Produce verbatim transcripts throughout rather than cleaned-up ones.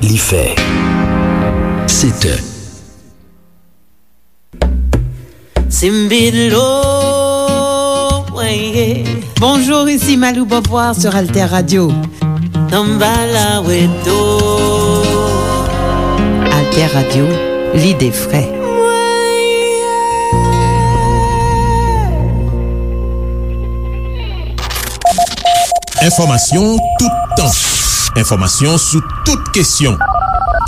Li fè sèt è. Simbilo, weye. Bonjour, ici Malou Beauvoir sur Alter Radio. Tambala weto. Alter Radio, l'idée frais. Enfòmasyon toutan. Enfòmasyon sou tout kesyon.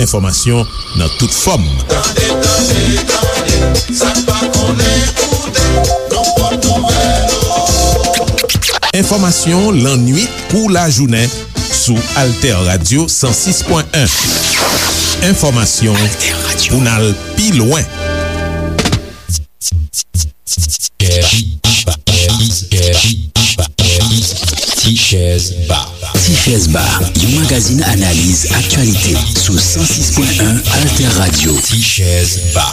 Enfòmasyon nan tout fòm. Tande, tande, tande, sa n pa konnen koute, nan pòt nouvèl yo. Enfòmasyon lannuit kou lajounen sou Alter Radio san sis pwen en. Enfòmasyon pou n al pi lwen. Tichèz Ba. Tichèz Ba, yon magazin analiz aktyalite sou san sis pwen en Alter Radio. Tichèz Ba.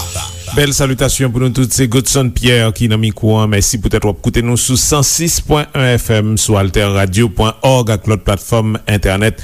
Bèl salitasyon pou nou tout, se Godson Pierre ki nan mikwo an. Mèsi poutèt w ap koute nou sou san sis pwen en F M, sou alter radio pwen òg ak lòt platfòm entènèt.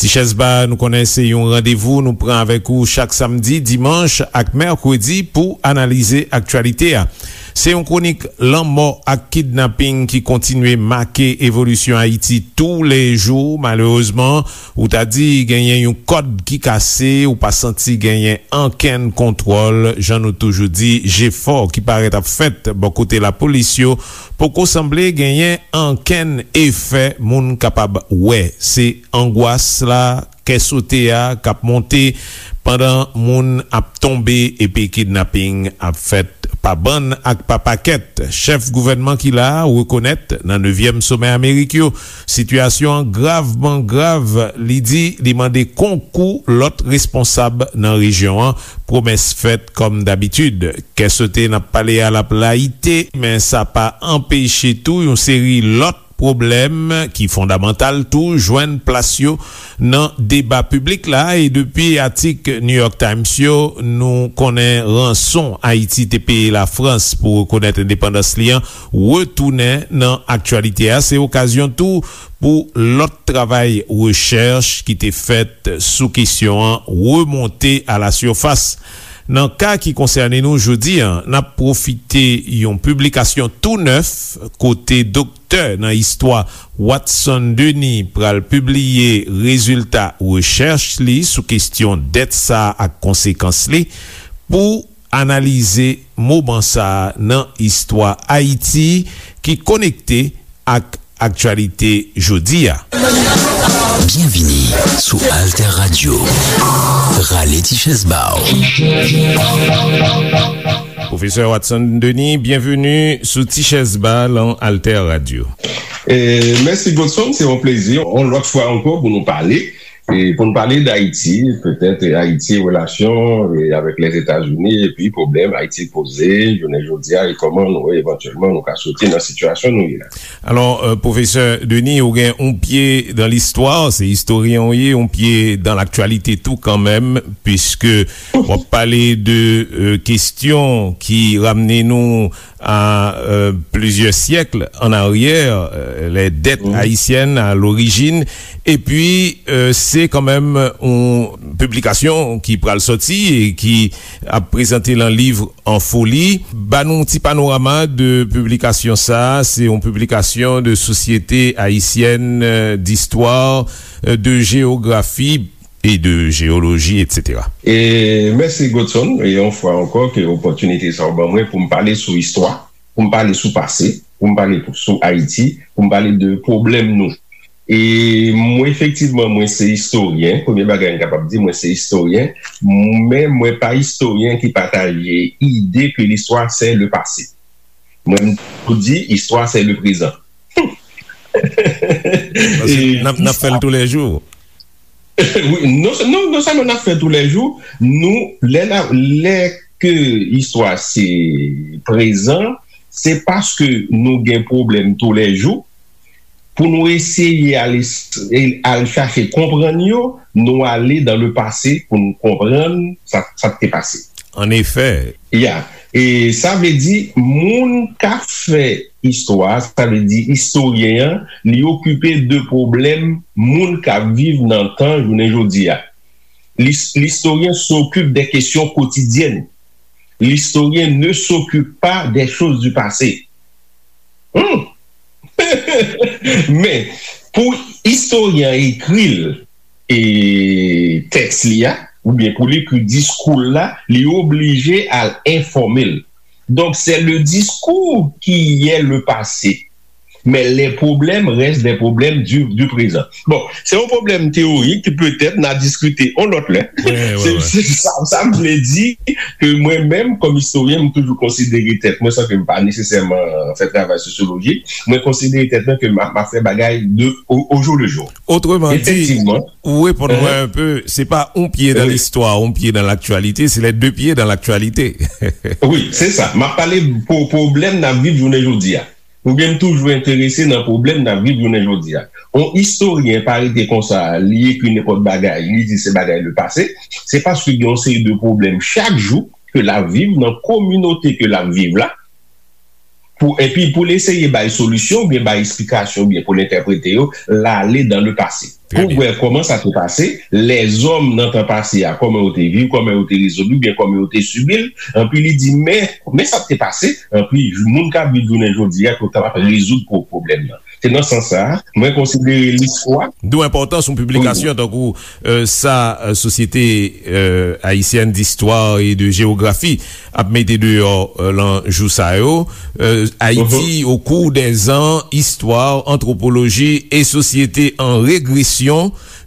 Tichèz Ba, nou konnen se yon randevou nou pran avèk ou chak samdi, dimanch ak mèkredi pou analize aktyalite a. Se yon kwonik lanmò ak kidnaping ki kontinye make evolisyon Ayiti toulejou. Malerezman, ou ta di genyen yon kòd ki kase, ou pa santi genyen ankenn kontwòl. Jan nou toujou di, jefò ki parèt ap fèt bò kote lapolis yo poko sanble genyen ankenn efè moun kapab wè. Se angwas la, kè sote a k ap monte pandan moun ap tonbe epi kidnaping ap fèt pa bann ak pa pakèt. Chèf gouvènman ki la a rekonèt nan nevyèm somè Amerik yo, sitiyasyon an gravman grav. Li di li mande konkou lòt responsab nan rejyon an. Pwomès fèt kòm dabitid. Kè sote n ap pale a l ap layite, men sa pa anpeche tou yon seri lòt pwoblèm ki fondamantal tou jwenn plas yo nan deba piblik la. E depi atik New York Times yo, nou konnen ranson Ayiti te peye Lafrans pou rekonèt endepandans li an retounen nan aktyalite a. Se okazyon tou pou lòt travay rechèch ki te fèt sou kesyon an remonte a la sifas. Nan ka ki konsène nou jodi a, n ap pwofite yon piblikasyon tou nèf kote doktè nan istwa Watson Denis pral pibliye rezilta rechèch li sou kesyon dèt sa a ak konsekans li. Pou analize moman sa a nan istwa Ayiti ki konekte ak aktyalite jodi a. Byenvini sou Alter Radio. Rale ti chèz ba w. Pwofesè Watson Denis, byenveni sou Ti Chèz Ba lan Alter Radio. E, mèsi Godson, se yon plezi, yon lòt fwa ankò pou nou pale. E pou n pale d Ayiti, petèt, e, Ayiti, relasyon, e, avèk Lèzetazini, epi pwoblèm Ayiti poze, jounen jodi a, e kòman nou, evantyèlman, nou ka soti nan sitiyasyon nou ye la. Alò, e, pwofesè Denis, ou gen yon pye dan listwa, se istoryen ou ye, yon pye dan laktyalite tou kanmenm, piske w ap pale de, e, kesyon ki ramne nou a, euh, plizyè syèk an aryè, euh, les dettes haïtiennes à l'origine. Epi, euh, se kanmenm yon piblikasyon ki pral sòti e ki ap prezante lan liv An Foli. Ba nou yon ti panorama de piblikasyon sa a. Se yon piblikasyon de Société Haïtienne, euh, d'Histoire, euh, de Géographie et de Géologie, et cetera. E mèsi Godson, e yon fwa ankò ke opòtinite sa w ban mwen pou m pale sou istwa, pou m pale sou pase, pou m pale sou Ayiti, pou m pale de pwoblèm nou. E mwen, efektivman, mwen se istoryen. Premye bagay m kapab di, mwen se istoryen, men mwen pa istoryen ki pataje ide ke l'histoire c'est le passé. Mwen, m toujou di, istwa se le prezan. Paske n ap, n ap fè l toulejou. Wi, non, non, non sèlman n ap fè toulejou, nou, lè n ap, lè ke istwa se prezan, se paske nou gen pwoblèm toulejou, pou nou eseye al, al chache konprann yo, nou ale dan le pase pou nou konprann sa, sa k te pase. An efè. Ya. E sa vle di, moun k ap fè istwa, sa vle di istoryen an, li okipe de pwoblèm moun k ap viv nan tan jounen jodi a. L'his- L'historien s'occupe des questions quotidiennes. L'historien ne s'occupe pas des choses du passé. Hmm. Men, pou istoryen an ekri l, e, tèks li a, oubyen pou l ekri diskou l la, li oblije al enfòme l. Donc, c'est le discours qui est le passé. Mais les problèmes restent des problèmes du, du présent. Bon, se yon pwoblèm teyorik ki petèt n a diskite yon lòt lè. Se sa, sa m vle di, ke mwen menm, kòm istoryen, m toujou konsidere tèt mwen, san ke m pa nesesèman fè travay sosyolojik, mwen konsidere tèt mwen ke m ap, m ap fè bagay de, au, au jour le jour. Otreman di, ou reponn mwen un peu, se pa un pied dans l'histoire, un pied dans l'actualité, c'est les deux pieds dans l'actualité. Wi, se sa. M ap pale pou pwoblèm n ap viv jounen jodi a. Oubyen m toujou enterese nan pwoblèm n ap viv jounen jodi a. On istoryen pa rete konsa, li ekri nenpòt bagay, li di se bagay le passé, se paske gen yon seri de pwoblèm chak jou ke l ap viv nan kominote ke l ap viv la, pou, epi pou l eseye bay solisyon, oubyen bay eksplikasyon, oubyen pou l entèprete yo, l ale dans le passé. Pou w wè kòman sa te pase, lèzòm nan tan pase a, kòman yo te viv, kòman yo te rezoud li, oubyen kòman yo te sibi l, epi li di, men, men sa k te pase, epi moun k ap viv jounen jodi a, pou yo kapab rezoud pwoblèm nan. Se nan sans sa a, mwen konsidere listwa. D'où enpòtans yon piblikasyon tankou, euh, sa, euh, Société, euh, Haïtienne d'Histoire et de Géographie ap mete deyò, euh, lan jou sa yo. Euh, Haïti au cours des ans, histoire, anthropologie et société en régression,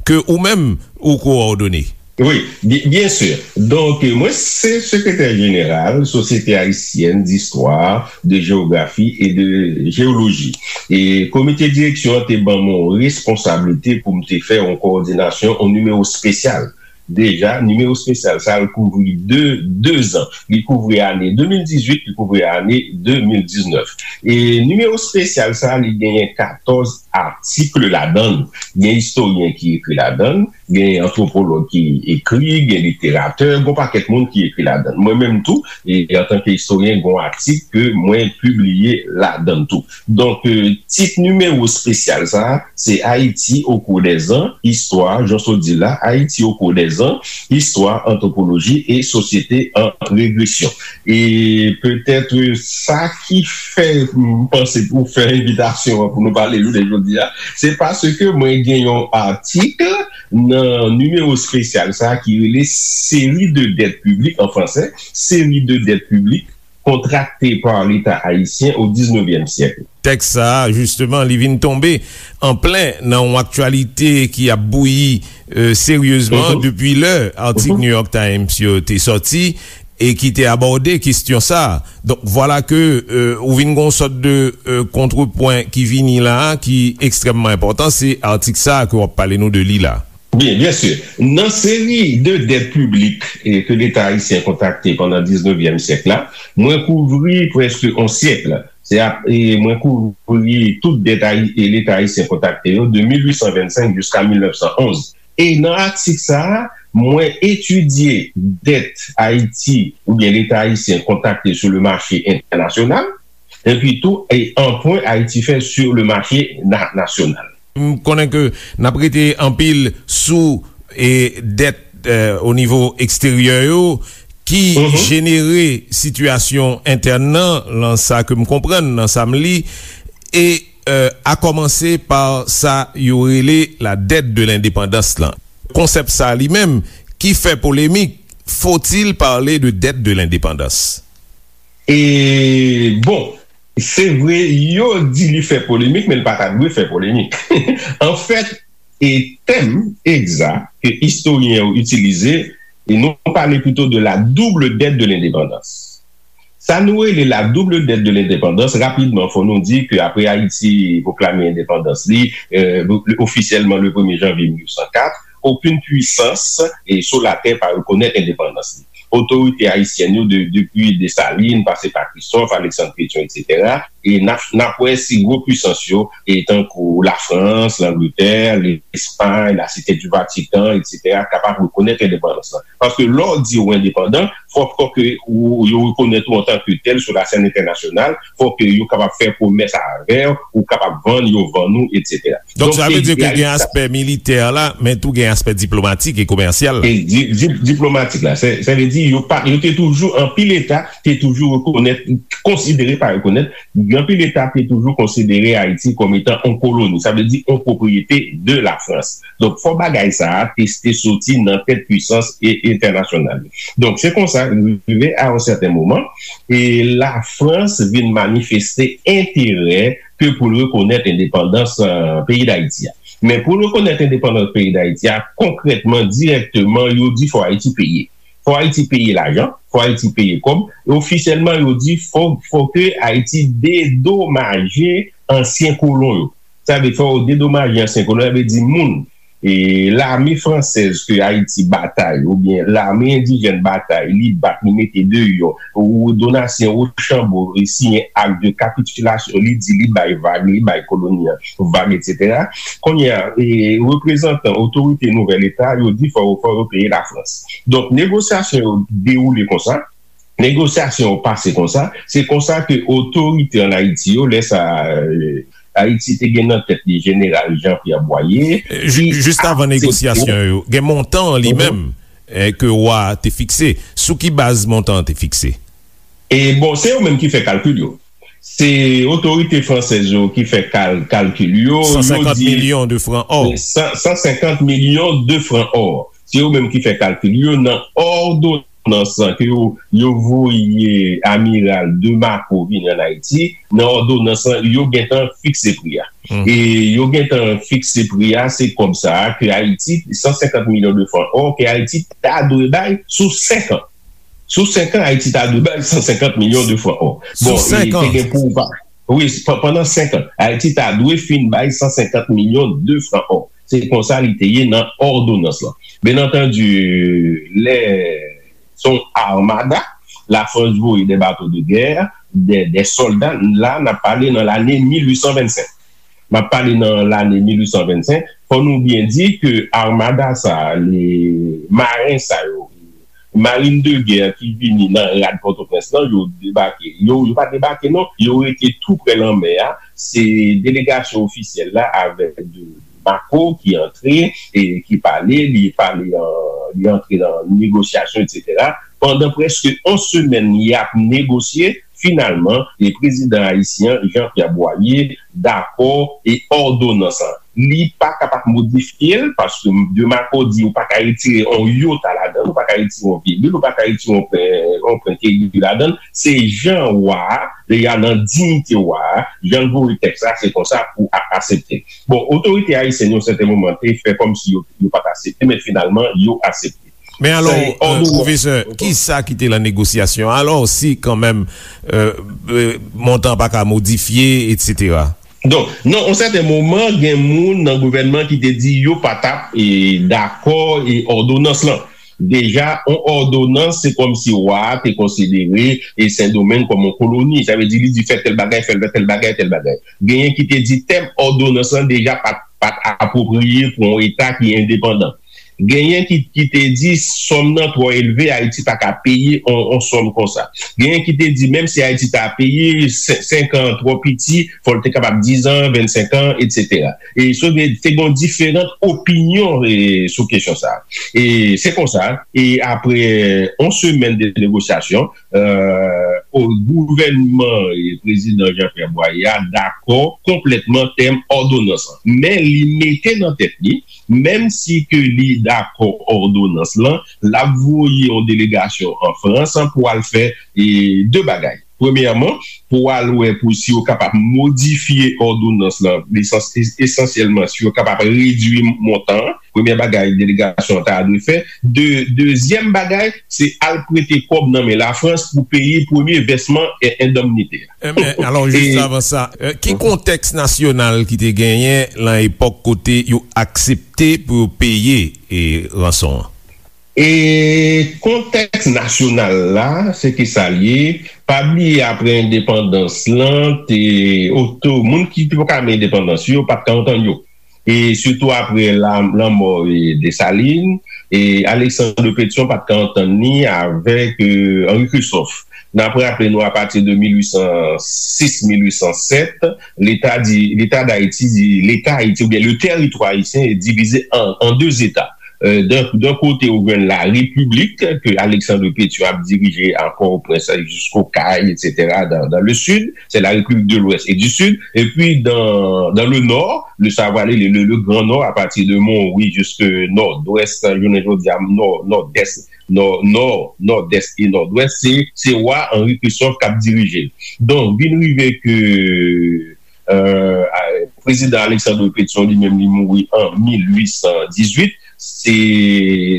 ke ou menm ou kowòdone. Wi, byen, byen si. Donk, mwen se sekretè jeneral Société Haïtienne d'Histoire, de Géographie et de Géologie. E komite direksyon an te ban mwen yon responsablite pou m te fè yon kowòdinasyon, yon nimewo espesyal. Deja, nimewo espesyal sa a, l kouvri de, de zan. Li kouvri ane de mil dizuit, li kouvri ane de mil diznèf. E nimewo espesyal sa a, li genyen katòz atik ladan l. Gen istoryen ki ekri ladan l, gen antwopològ ki ekri, gen literatè, gen yon pakèt moun ki ekri ladan l. Mwen menm tou, e, antanke istoryen, gen yon atik ke mwen pibliye ladan l tou. Donk, euh, tit nimewo espesyal sa a, se Haïti au cours des ans, histoire, jan w sot di la, Haïti au cours des ans, histoire, anthropologie et société en régression. E petèt, euh, sa ki fè m panse pou fè envitasyon an pou nou pale jounen jodi a, se paske mwen gen yon atik nan nimewo espesyal sa a ki rele Série de dettes publiques, en français, Série de dettes publiques contractées par l'État haïtien au dix-neuvième siècle. Tèks sa a, jisteman, li vin tonbe an plen nan yon aktyalite ki ap bouyi, euh, seryezman depi lè atik New York Times yo te sòti e ki te abòde kesyon sa a. Donk, vwala ke, euh, ou vin gen yon sòt de, euh, kontrepwen ki vini la a, ki ekstrèmman enpòtan, se atik sa a ke w ap pale nou de li la. Byen, byen si. Nan seri de dèt piblik, e, ke Leta ayisyen kontrakte pandan diznevyèm syèk la, mwen kouvri prèske on syèk. Se ap, e, mwen kouvri tout dèt ayi-, e, Leta ayisyen kontrakte yo de mil uit san vennsenk jiska mil nèf san onz. E nan atik sa a, mwen etidye dèt Ayiti oubyen Leta ayisyen kontrakte sur le marché international, epi tou, e, anpwen Ayiti fè sur le marché na-, national. M konnen ke n ap rete anpil sou, e, dèt, e, o nivo eksteryè yo ki jenere sitiyasyon entèn nan, lan sa ke m konprann, nan sa m li, e, e, a kòmanse pa sa yo rele la dette de l'indépendance lan. Konsèp sa li menm ki fè polemik, faut-il parler de dette de l'indépendance? E, bon, se vre, yo di li fè polemik, men li pa ta dwe fè polemik. Anfèt, e tèm egzak ke istoryen yo itilize, e nou pale plito de la double dette de l'indépendance. Sa nou rele la double dette de l'indépendance, rapidman, fò nou di ke apre Ayiti pwoklame endepandans li, e, ofisyèlman le premye janvye mil uit san kat, okenn pwisans, e, sou latè pa rekonèt endepandans li. Otorite ayisyèn yo, de, depi Desalin, pase pa Christophe, Alexandre Pétion, etsetera, e n ap, n ap wè si gwo pwisans yo, e tankou Lafrans, Langletè, Lespay, Lasite di Vatikan, etsetera, kapab rekonèt endepandans lan. Paske lè w di w endepandan, fòk, fòk ke ou, yo rekonèt ou antanke tèl sou lasèn entènasyonal, fòk ke yo kapab fè komès avè w, ou kapab vann, yo vann ou, etsetera. Donk, donk, sa vle di ke gen aspè militè la, men tou gen aspè diplomatik e komèsyal la. E di, di, diplomatik la, sa, sa vle di, yo pa, yo te toujou, anpil eta te toujou rekonèt, konsidere, pa rekonèt, anpil eta te toujou konsidere Ayiti kòm etan yon koloni, sa vle di yon pwopriyete de Lafrans. Donk, fò bagay sa a te, te soti nan tèt pwisans e, entènasyonal yo. Donk, se konsa, rive a yon sèten moman, e Lafrans vin manifeste enterè ke pou l rekonèt endepandans, eh, peyi Dayiti a. Men pou l rekonèt endepandans peyi Dayiti a, konkrètman, dirèkteman, yo di fò Ayiti peye. Fò Ayiti peye lajan, fò Ayiti peye kòb. E ofisyèlman, yo di fò, fò ke Ayiti dedomaje ansyen kolon yo. Sa vle fò yo dedomaje ansyen kolon, sa vle di moun, e, lame fransèz ke Ayiti batay, oubyen lame endijèn batay, li bat, li mete deyò, ou Donatien Rochambeau, e, siyen ak de kapitilasyon, li di li bay vag, li bay koloni an vag, etsetera. Kounye a, e, reprezantan otorite nouvèl eta, yo di fò, fò yo peye Lafrans. Donk, negosyasyon yo dewoule konsa, negosyasyon yo pase konsa, se konsa ke otorite ann Ayiti yo, lè sa, e, Ayiti te gen nan tèt li Jeneral Jean Pierre Boyer, ki aksepte. Jis avan negosyasyon yo, gen montan an li menm, e, ke wa a te fikse. Sou ki baz montan an te fikse? E bon, se yo menm ki fè kalkil yo. Se otorite fransèz yo ki fè kal-, kalkil yo. San senkant milyon de fran ò. San, san senkant milyon de fran ò. Se yo menm ki fè kalkil yo nan òdonans ke yo, yo voye Amiral de Marco vini ann Ayiti. Nan òdonans lan, yo gentan fikse pri a. E yo gentan fikse pri a, se kòb sa a ke Ayiti, san senkant milyon de fran ò, ke Ayiti ta dwe bay sou senk an. Sou senk an, Ayiti ta dwe bay san senkant milyon de fran ò. Bon, e te gen pou pa-, wi, pa-, pandan senk an, Ayiti ta dwe fin bay san senkant milyon de fran ò. Se konsa li te ye nan òdonans lan. Byen antandi, lè se yon armada, Lafrans voye de bato de gè, de, de sòlda, la, n ap pale nan lane mil uit san vennsenk. M ap pale nan lane mil uit san vennsenk. Fò nou byen di ke armada sa a, le, maren sa yo, marin de gè ki vini nan rad Pòtoprens lan, yo debake. Yo, yo pa debake, non. Yo rete tou prè lanmè a. Se delegasyon ofisyèl la avèk de Marco ki antre, e ki pale, li pale, an, li antre nan negosyasyon, etsetera. Pandan prèske yon semèn, y ap negosye. Finalman, e prezidan ayisyen an, Jean Pierre Boyer, dakò e òdonans lan. Li pa kapab modifye l, paske de Marco di ou pa ka retire yon yota ladan l, ou pa ka retire yon vigil, ou pa ka retire yon pwen, yon pwen kegi ladan l. Se jan wa a, deja nan diyite wa a, jan l voye tèks la, se konsa pou a-, aksepte. Bon, otorite ayisyèn yo, yon sèten moman, te fè kòmsi yo, yo pa t aksepte, men finalman, yo aksepte. Men alò, pwofesè, kisa ki te lan negosyasyon? Alò, si kanmenm, e, e, montan pa ka modifye, etsetera. Donk, nan yon sèten moman, gen moun nan gouvènman ki te di yo pa t ap, e, dakò, e, òdonans lan. Deja, yon òdonans, se kòmsi wa a te konsidere, e, Sendomeng kòm yon koloni. Sa vle di, li di fè tèl bagay, fè tèl bagay, tèl bagay. Genyen ki te di tèm òdonans lan deja pa t, pa t apwopriye pou yon eta ki endepandan. Genyen ki, ki te di sòm nan twò elve, Ayiti pa ka peye on, on sòm konsa. Genyen ki te di menm si Ayiti ta peye sen-, senk an twò piti, fò l te kapab diz an, vennsenk an, etsetera. E so, te gen diferan opinyon, e, sou kesyon sa a. E se konsa, e apre on semèn de negosyasyon, e, o, gouvènman, e, prezidan Jean Pierre Boyer a dakò konplètman tèm òdonans lan. Men li mete nan tèt li, menm si ke li dakò òdonans lan, l ap voye yon delegasyon an Frans pou al fè, e, de bagay. Premyèman, pou al wè pou si yo kapab modifye òdonans lan, esans-, es-, esansyèlman si yo kapab redui montan an. Premyè bagay delegasyon an ta dwe fè. De-, dezyèm bagay, se al prete kòb nan men Lafrans pou peye premye vèsman e-, endemnite a. Enben, alò, jis avan sa, e, ki kontèks nasyonal ki te genyen lan epòk kote yo aksepte pou yo peye, e, ranson an? E kontèks nasyonal la, se ki sa l ye. Pa bliye, apre endepandans lan, te oto, moun ki te poko menm endepandans yo, pa t ka antann yo. E sitou apre la, lanmò, e, Desalin, e Alexandre Pétion pa t ka antann li avèk, e, Henri Christophe. N ap raple nou, apati de mil uit san sis, mil uit san sèt, Leta di, Leta Dayiti di, Leta Ayiti, oubyen le territoire haïtien est divisé en, en deux États. Euh, d'un, d'un côté, ou jwenn la République, que Alexandre Pétion ap dirije a Port-au-Prince jusqu'au Cayes, et cetera, dans, dans le sud, c'est la République de l'Ouest et du Sud. Et puis, dans, dans le nord, le, sa va aller le, le, le Grand Nord, à partir de Mont-Rouy jusqu'à Nord-Ouest, jounen jodi a, Nord, Nord-Est, Nord, Nord, Nord-Est et Nord-Ouest, se, se wa Henri Christophe k ap dirije. Donk, vin rive ke, euh, a, prezidan Alexandre Pétion, li menm, li mouri an mil uit san dizuit, se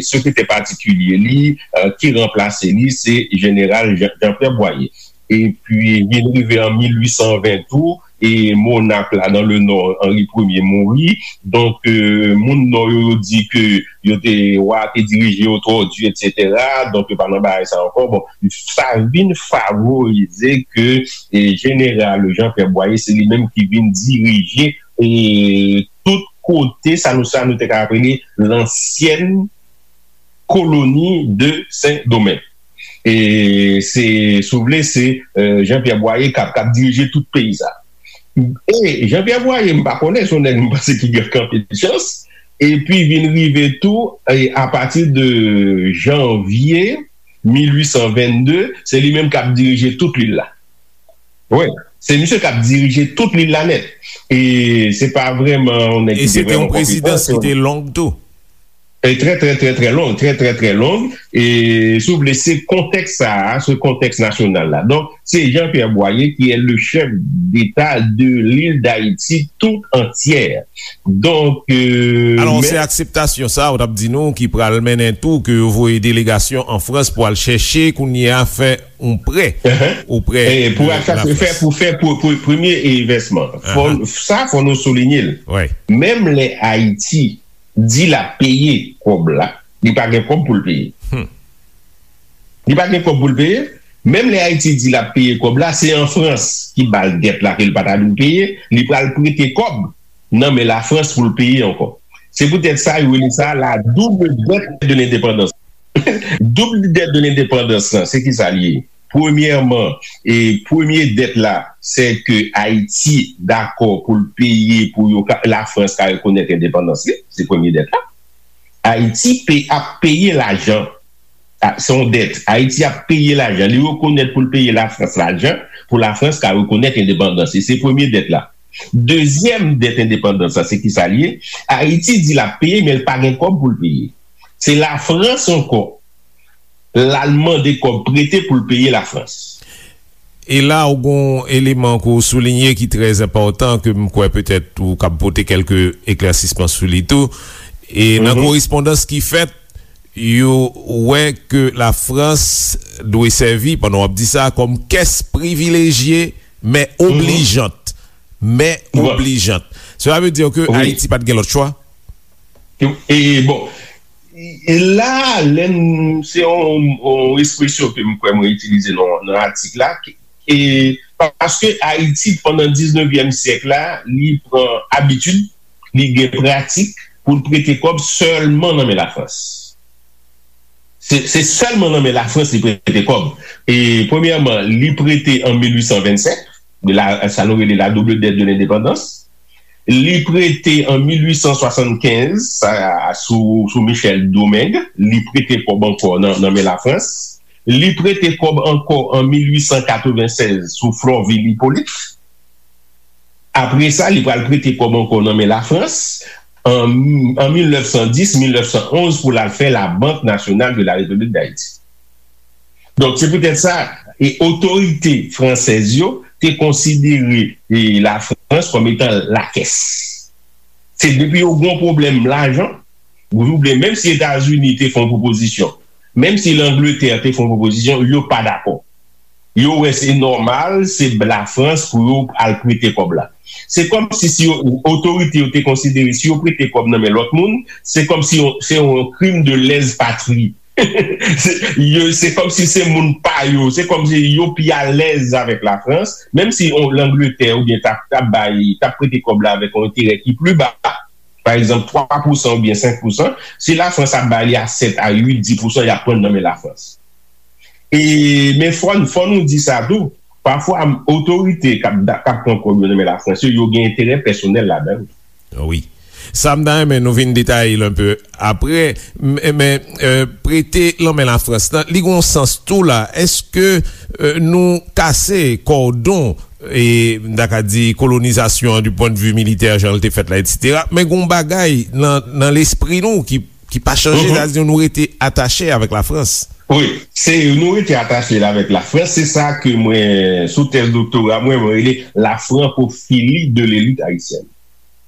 sekretè patikilye li, euh, ki ranplase li, se jeneral Jean, Jean-Pierre Boyer. Epi, vin rive an mil uit san ven tou, e monark la dans le nord, Henri Premye mouri. Donk, euh, moun nò yo, yo di ke yo te, wa te dirije yo twò di, et cetera. Donk, yo pa nan bagay sa ankò. Bon, sa vin favorize ke, e, jeneral Jean-Pierre Boyer, se li menm ki vin dirije, e, tout kote, sa nou, sa nou te ka rele lansyen koloni de Sendomeng. E se, si w vle, se, euh, Jean-Pierre Boyer k ap, k ap dirije tout peyi sa. E Jean-Pierre Boyer, m pa konnen, se yon nèg m panse ki gen anpil chans. Epi vin rive tou, e apati de janvye mil uit san vennde, se li menm k ap dirije tout lil la. Wi, se misye k ap dirije tout lil la nèt. E se pa vrèman yon nèg ki te vrèman konpetan. E se te yon prezidans ki te long tou. E trè, trè, trè, trè long, trè, trè, trè long. E, si w vle, se kontèks sa a, se kontèks nasyonal la. Donk, se Jean-Pierre Boyer qui est le chef d'État de l'île d'Haïti tout entière. Donk, euh, alò, men se akseptasyon sa a, ou t ap di nou, ki pral mennen tou ke yo voye delegasyon an Frans pou al chèche kounye a fè yon prè oprè de Lafrans. E pou al chache fè, pou fè pou, pou premye envèsman. Fò, sa, fò nou soulinye l. Menm lè Ayiti di l ap peye kòb la, li pa gen kòb pou l peye. Li pa gen kòb pou l peye. Menm lè Ayiti di l ap peye kòb la, se an Frans ki ba l dèt la ke l pa ta dwe peye, li pral prete kòb nan men Lafrans pou l peye ankò. Se poutèt sa yo rele sa la double dette de l'indépendance. Double dette de l'indépendance lan, se ki sa l ye? Premyèman, e premye dèt la, se ke Ayiti dakò pou l peye pou yo ka, Lafrans ka rekonèt endepandans li, se premye dèt la. Ayiti pe, ap peye lajan. A, se yon dèt. Ayiti ap peye lajan. Li rekonèt pou l peye Lafrans lajan, pou Lafrans ka rekonèt endepandans li. Se premye dèt la. Dezyèm dèt endepandans la, se ki sa l ye? Ayiti di l ap peye, men l pa gen kòb pou l peye. Se Lafrans ankò, l al mande kòb prete pou l peye Lafrans. E la, ou gon eleman ke w soulinye ki trè enpòtan, ke m kwè petèt ou kab pote kèlke eklèsisman sou li tou. E nan korespondans ki fèt, yo wè ke Lafrans dwe sèvi, pandan w ap di sa, kòm kès privilejye, men oblijant. Men oblijant. Sela vle di ke Ayiti pa t gen lòt chwa? E, e, bon, e la, lè n, se yon, yon ekspresyon ke m kwè mwen itilize nan, nan atik la, e paske Ayiti, pandan diznevyèm syèk la, li pran abitid, li gen pratik pou l prete kòb sèlman nan men Lafrans. Se, se sèlman nan men Lafrans li prete kòb. E, premyèman, li prete an mil uit san vennsenk, de la, sa nou rele la double dette de l'indépendance. Li prete an mil uit san swasannkenz, sa, sou, sou Michel Domingue, li prete kòb ankò nan, nan men Lafrans. Li prete kòb ankò an mil uit san katrevennsèz sou Florvil Hyppolite. Apre sa, li pral prete kòb ankò nan men Lafrans an, an mil nèf san dis, mil nèf san onz pou l al fè la Banque Nationale de la République d'Haïti. Donk, se poutèt sa, e otorite fransèz yo te konsidere, e, Lafrans kòm etan lakès. Se depi yo gon pwoblèm lajan, ou oubyen menm si Etazini te fè yon pwopozisyon, menm si Langletè te fè yon pwopozisyon, yo pa dakò. Yo wè se nòmal, se Lafrans pou yo al prete kòb la. Se kòmsi si yo, otorite yo te konsidere si yo prete kòb nan men lòt moun, se kòmsi yon, se yon krim de lèz patri. Se, yo, se kòmsi se moun pa yo, se kòmsi yo pi alèz avèk Lafrans, menm si on, Langletè oubyen t ap, t ap bay, t ap prete kòb la avèk yon enterè ki pli ba, pa egzanp, twa pousan oubyen senk pousan, si Lafrans ap ba li a sèt a uit, dis pousan, y ap pran nan men Lafrans. E, men fò, fò nou di sa tou, pafwa, otorite k ap, k ap pran kòb yo nan men Lafrans yo, yo gen enterè pèsonèl ladan l. Wi. Sa m ta renmen nou vin detaye l enpe apre, men, men, euh, prete lanmen Lafrans lan, li gon sans tou la. Èske, euh, nou kase kòdon, e, m ta ka di, kolonizasyon an du point de vue militè, jan l te fèt la, etsetera, men gon bagay nan, nan lespri nou ki, ki pa chanje, mhm, sa di nou rete atache avèk Lafrans. Wi, se nou rete atache la avèk Lafrans, se sa ke mwen, sou tèz doktora mwen, mwen rele la francophilie de l'élite haïtienne.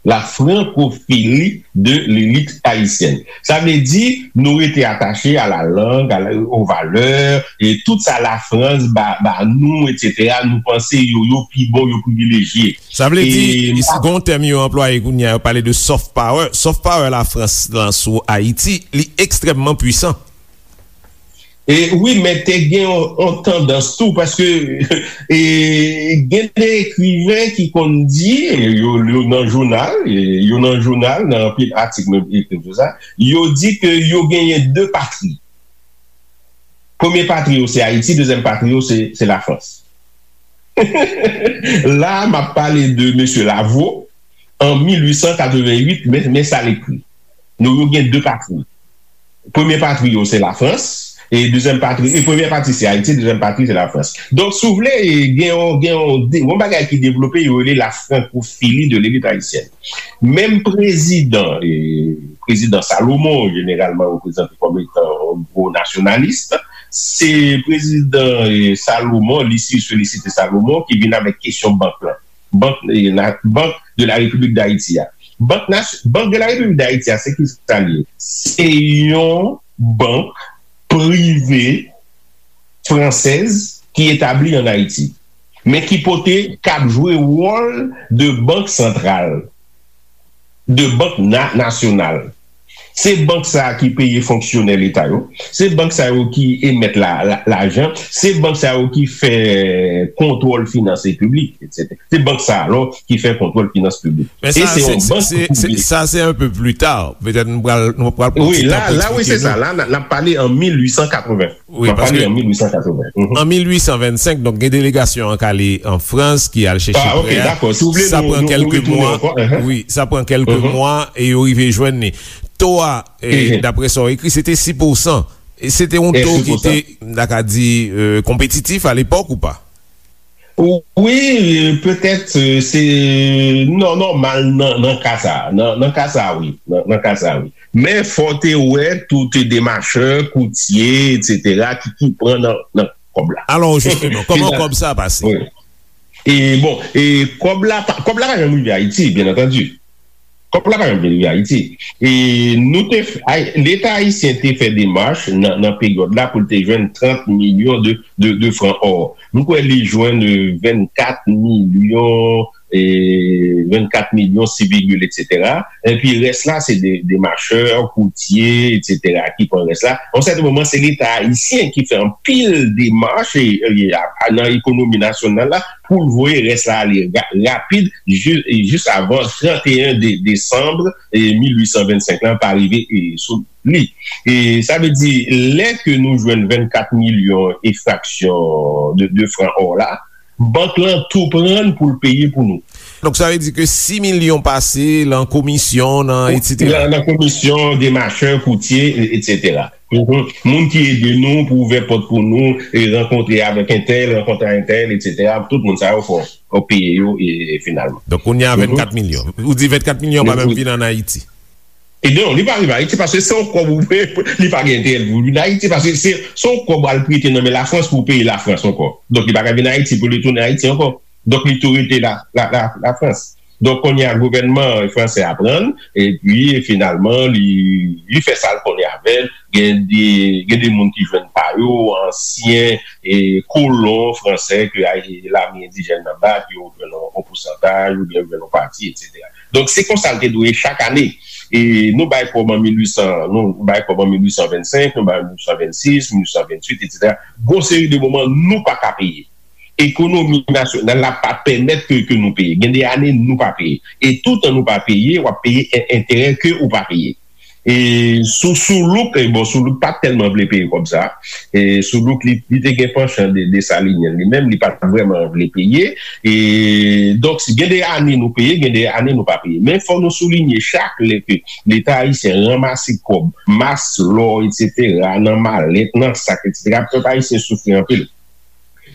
La francophilie de l'élite haïtienne. Sa vle di, nou rete atache a la lang, a la, aux valeurs, e tout sa Lafrans ba, ba nou, etsetera, nou panse yo, yo pi bon, yo privilejye. Sa vle di, e, gon tèm yo anplwaye kounye a, yo pale de soft power. Soft power Lafrans lan sou Ayiti, li ekstrèmman pwisan. E wi, men te gen yon, yon tandans tou, paske, e, gen de ekriven ki konn di, e, yo, yo nan jounal, e, yo nan jounal, nan anpil atik menm ekri sou sa, yo di ke yo genyen de patri. Premye patri yo se Ayiti, dezyèm patri yo se, se Lafrans. La, m ap pale de mesye Lavaux, an mil uit san katreven uit, men, men sa l ekri. Nou, yo gen de patri. Premye patri yo se Lafrans, e dezyèm patri, e premyè patri se Ayiti, dezyèm patri se Lafrans. Donk, si w vle, e, gen yon, gen yon, de, yon bagay ki devlope, yo rele la francophilie de l'élite haïtienne. Menm prezidan, e, prezidan Salomon, jeneralman reprezante kòm etan yon gwo nasyonalis, se prezidan, e, Salomon, Lucius Félicité Salomon, ki vin avèk kesyon bank lan. Bank, e, la, Banque de la République d'Haïti a. Bank, Banque de la République d'Haïti a, se ki sa l ye? Se yon bank prive fransèz ki etabli an Ayiti, men ki pote, k ap jwe wòl de bank santral, de bank na-, nasyonal. Se bank sa a ki peye fonksyonè leta yo, se bank sa yo ki emèt la, la, lajan, se bank sa yo ki fè kontwòl finans piblik, etsetera. Se bank sa a, alò, ki fè kontwòl finans piblik. Men e sa, se se, yon se, bank se, se, prive. Sa, se un peu plus tard. Petèt nou pral, nou pral pran ti tan pou eksplike nou. Wi, la, la, wi, se sa. La, n a, n ap pale an mil uit san katreven. Wi, paske an mil uit san katreven. Mhm. An mil uit san vennsenk, donk, gen delegasyon an k ale an Frans, ki al chèche prè a. Ah, ok, dakò. Si w vle, sa pran kèlke mwa. Wi, sa pran kèlke mwa e yo rive jwenn li. To a, e, daprè sa w ekri, se te sis pousan. E se te yon to ki te, m ta ka di, e, konpetitif alepòk ou pa? Wi, petèt, e, se nò-, nòmal nan, nan ka sa a. Nan, nan ka sa a, wi. Nan, nan ka sa a, wi. Men fò w te wè tout demachè, koutye, etsetera, ki, ki pran nan, nan kòb la. Alò, jisteman, kòman kòb sa a pase? Wi. E bon, e kòb la pa, kòb la pa janm rive Ayiti, byen antandi. Kòb la pa janm rive Ayiti. E nou te f-, ay-, Leta ayisyen te fè demach nan, nan peryòd la pou l te jwenn trant milyon de, de, de fran ò. M kwè li jwenn, e, vennkat milyon, e, vennkat milyon sis vigil, etsetera. Epi rès la, se de, demachè, koutye, etsetera, ki pran rès la. Yon sèten moman, se Leta ayisyen ki fè anpil demach, e, e, a, a, nan ekonomi nasyonal la, pou l voye rès la ale ra-, rapid, ji-, jis avan trant e en de-, desanm, e, mil uit san vennsenk lan pa rive, e, sou li. E sa vle di, lè ke nou jwenn vennkat milyon e fraksyon de, de fran ò la, bank lan tou pran l pou l peye pou nou. Donk, sa vle di ke sis milyon pase lan komisyon, nan etsetera. Nan, nan komisyon, demachè, koutye, e, etsetera. Mhm. Moun ki ede nou pou ouvè pòt pou nou, e rankontre avèk entèl, rankontre ak entèl, etsetera. Tout moun sa yo fò, fò peye yo, e, e finalman. Donk, kounye a, mhm, vennkat milyon. Ou di vennkat milyon pa menm vin ann Ayiti. E non, li pa rive Ayiti paske se yon kòb ou peye, li pa gen enterè pou vin Ayiti paske se, se yon kòb al prete nan men Lafrans pou peye Lafrans ankò. Donk, li pa ka vin Ayiti pou li tounen Ayiti ankò. Donk, li tou rete la, la, la, Lafrans. Donk, kounye a, gouvènman fransè a pran l, epi, finalman, li, li fè sa l konnen avè l. Gen de, gen de moun ki jwenn pa yo, ansyen, e, kolon fransè ke, a, lame endijèn nan bat, yo jwenn yon, yon pousantaj, oubyen yo jwenn yon pati, etsetera. Donk, se konsa l te dwe ye chak ane. E nou bay kòb an mil uit san, nou bay kòb an mil uit san vennsenk, nou bay mil uit san vennsis, mil uit san venntuit, etsetera. Gon seri de moman, nou pa ka peye. Ekonomi nasyonal la pa pèmèt ke, ke nou peye. Gen de ane, nou pa peye. E toutan nou pa peye, w ap peye en-, enterè ke ou pa peye. E sou, Soulouk, e bon, Soulouk pa tèlman vle peye kòb sa. E Soulouk, li, li te gen panchan de, Desalinyen li menm, li pa t vrèman vle peye. E donk, si gen de ane nou peye, gen de ane nou pa peye. Men fò nou soulinye chak lè ke Leta ayisyen ranmase kòb, mas, lò, etsetera, nan malèt, nan sak, etsetera, pèp ayisyen soufri anpil.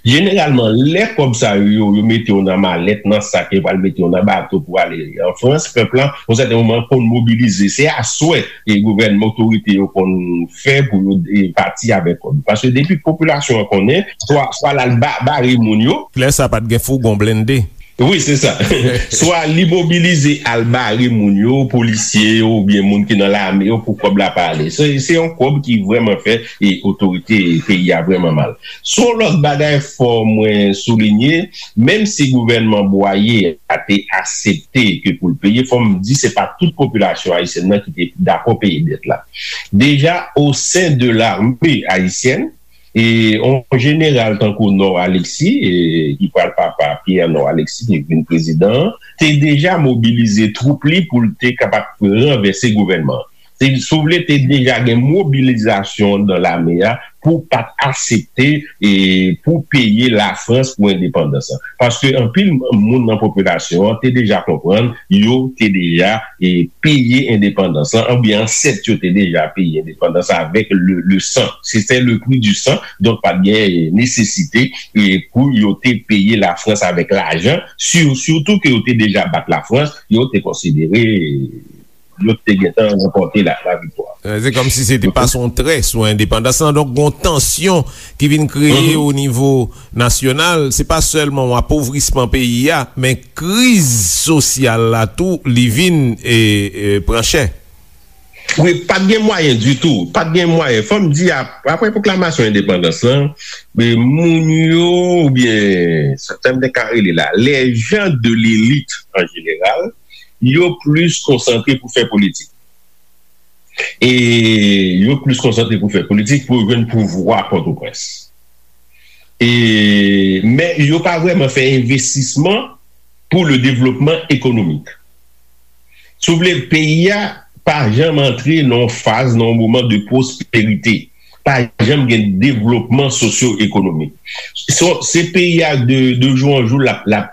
Jeneralman, lè kòb sa yo, yo, yo mete yo nan malèt, nan sak, yo pral mete yo nan bato pou ale an Frans, pèp la, yon sèten moman, konn mobilize. Se aswè e gouvènman, otorite yo konn fè pou yo, e, pati avèk kòb. Paske depi popilasyon an konnen, swa, swa l al ba-, bare moun yo. Lè sa pa t gen fougon blende. Wi, se sa. Swa li mobilize al bare moun yo, polisye yo, oubyen moun ki nan lame yo, pou kòb la pa ale. Se, se yon kòb ki vrèman fè e otorite peyi a vrèman mal. Sou yon lòt bagay, fò mwen soulinye, menm si gouvènman Bwaye a te aksepte ke pou l peye, fò m di se pa tout popilasyon ayisyèn nan ki te dakò peye dèt la. Deja, o sen de lame ayisyèn, e yon jeneral tankou Nord Alexis, e, ki pral papa Pierre Nord Alexis, ki vin prezidan an, te deja mobilize twoup li pou l te kapab ranvèse gouvènman an. Se, si w vle, te deja gen mobilizasyon anndan lame a pou pa t aksepte, e, pou peye Lafrans pou endepandans lan. Paske anpil moun nan popilasyon an te deja konprann, yo te deja, e, peye endepandans lan, oubyen ansèt yo te deja peye endepandans lan avèk le, le sang. C'était le prix du sang, donk pa t gen, e, nesesite, e, pou yo te peye Lafrans avèk lajan, si-, sitou ke yo te deja bat Lafrans, yo te konsidere, e, yo te gentan ranpòte la, laviktwa. Eh, se kòmsi se te pase yon trè sou endepandans lan. Donk, gon tansyon ki vin kreye o nivo nasyonal. Se pa sèlman yon apovrisman peyi a, men kriz sosyal la tou, li vin, e, e, pran chè. Wi, pa t gen mwayen ditou. Pa t gen mwayen. Fò m di, ap-, apre pwoklamasyon endepandans lan, men moun yo, oubyen, sa m te ka rele la, les gens de l'élite en général, yo plis konsantre pou fè politik. E yo plis konsantre pou fè politik, pou yo jwenn pouvwa Pòtoprens. E, men yo pa vrèman fè envestisman pou le développement économique. Si w vle, peyi a pa janm antre nan yon faz, nan yon moman de pwosperite. Pa janm gen devlopman sosyo-ekonomik. Se, se peyi a de, de jou an jou l ap, l ap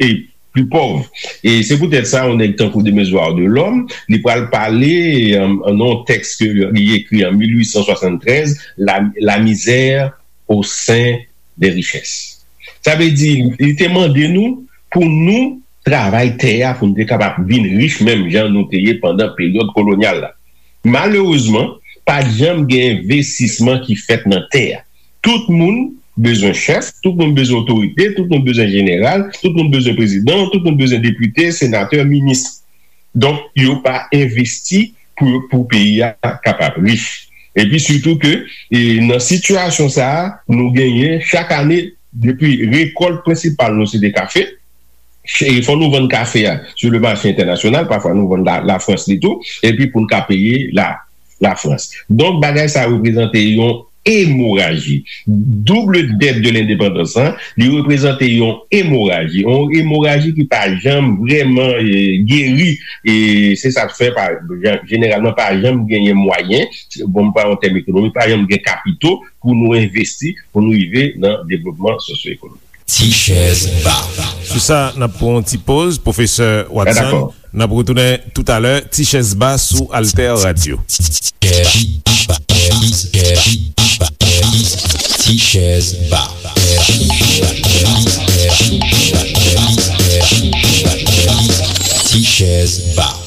e pli pòv. E se poutèt sa, yon nèg tankou Demezuar Delòm, li pral pale, e, an, an yon tèks ke li ekri an mil uit san swasanntrèz, La, La misère au sein des richesses. Sa vle di, li te mande nou pou nou travay tè a, pou nou te kapab vin rich menm jan nou te ye pandan peryòd kolonyal la. Malerezman, pa t janm gen envestisman ki fèt nan tè a. Tout moun bezwen chèf, tout moun bezwen otorite, tout moun bezwen jeneral, tout moun bezwen prezidan, tout moun bezwen depite, senatè, minis. Donk, yo pa envesti pou, pou peyi a kapab rich. Epi sitou ke, e, nan sitiyasyon sa a, nou genyen chak ane, depi rekòlt prensipal nou se te kafe, e fò nou vann kafe a sou le mache entènasyonal, pafwa nou vann la, Lafrans li tou, epi pou n ka peye la, Lafrans. Donk, bagay sa reprezante yon emoraji. Double dette de l'indépendance, hein, li reprezante yon emoraji. Yon emoraji ki pa janm vrèman, e, geri. E se sa k fè, pa, jan-, jeneralman, pa janm genyen mwayen, bon, m pran yon tèm ekonomik, pa janm gen kapito pou nou envesti, pou nou rive nan devlopman sosyo-ekonomik. Ti chèz ba. Sou sa, n ap pran yon ti poz, Pwofesè Watson. N ap retounen toutalè, Ti chèz ba sou Alter Radio. Ti chèz ba. Ti chèz ba.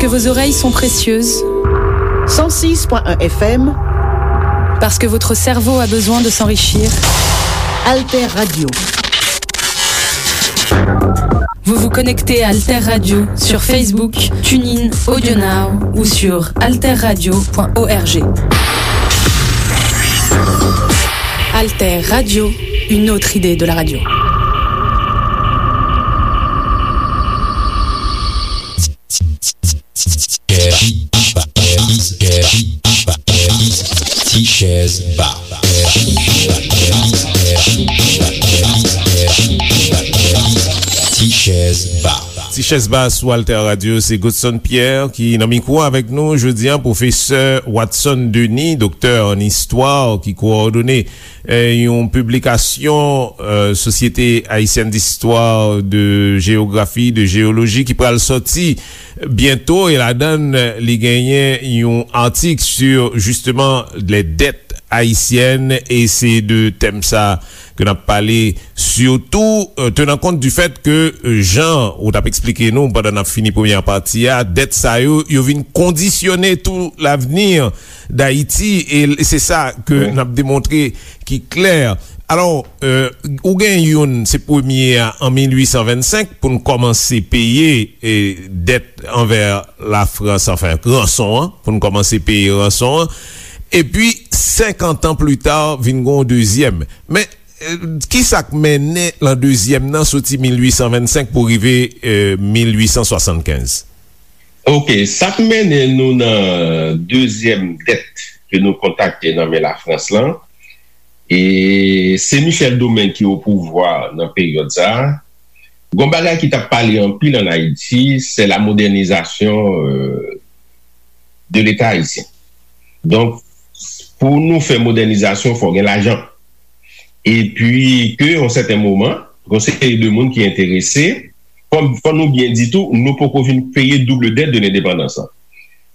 Que vos oreilles sont précieuses. Cent six point un F M. Parce que votre cerveau a besoin de s'enrichir. Alter Radio. Vous vous connectez à Alter Radio sur Facebook, TuneIn, AudioNow ou sur alterradio point org. Alter Radio, une autre idée de la radio. Ti Chèz Ba. Ti Chèz Ba. Ti Chèz Ba sou Alter Radio, se Godson Pierre ki nan mikwo avèk nou jodi a, pwofesè Watson Denis, doktè an istwa, ki kowòdone eh, yon piblikasyon eh, Société Haïtienne d'Histoire, de Géographie, de Géologie ki pral sòti byento, e ladan l li genyen yon atik sur justement les dettes haïtiennes, e se de tèm sa ke n ap pale surtout, eh, tenant compte du fait que eh, jan ou t ap eksplike nou pandan n ap fini premyè pati a, dèt sa yo, yo vin kondisyone tout l'avenir d'Haïti, e se sa ke n ap demontre ki klè. Alò, eh, ou gen youn, se premye a an mil ui san vennsenk pou n kòmanse peye eh, dèt anvè Lafrans, anfen, ranson an, pou n kòmanse peye ranson an. Epi, senkant an pli ta, vin gen yon dezyèm. Men, eh, ki sa k mennen lan dezyèm nan soti mil ui san vennsenk pou rive eh, mil ui san swasannkenz? Ok, sa k mennen nou nan dezyèm dèt ke nou kontakte nan men Lafrans lan, e se Michel Domingue ki o pouvwa nan peryòd sa a. Gon bagay ki t ap pale anpil ann Ayiti, se la modernizasyon euh, de Leta ayisyen. Donk, pou nou fè modènizasyon, fò gen lajan. Epi, ke yon sèten moman, gon seri de moun ki enterese, fò, fò nou byen di tou, nou poko fin peye double dette de lendepandans lan.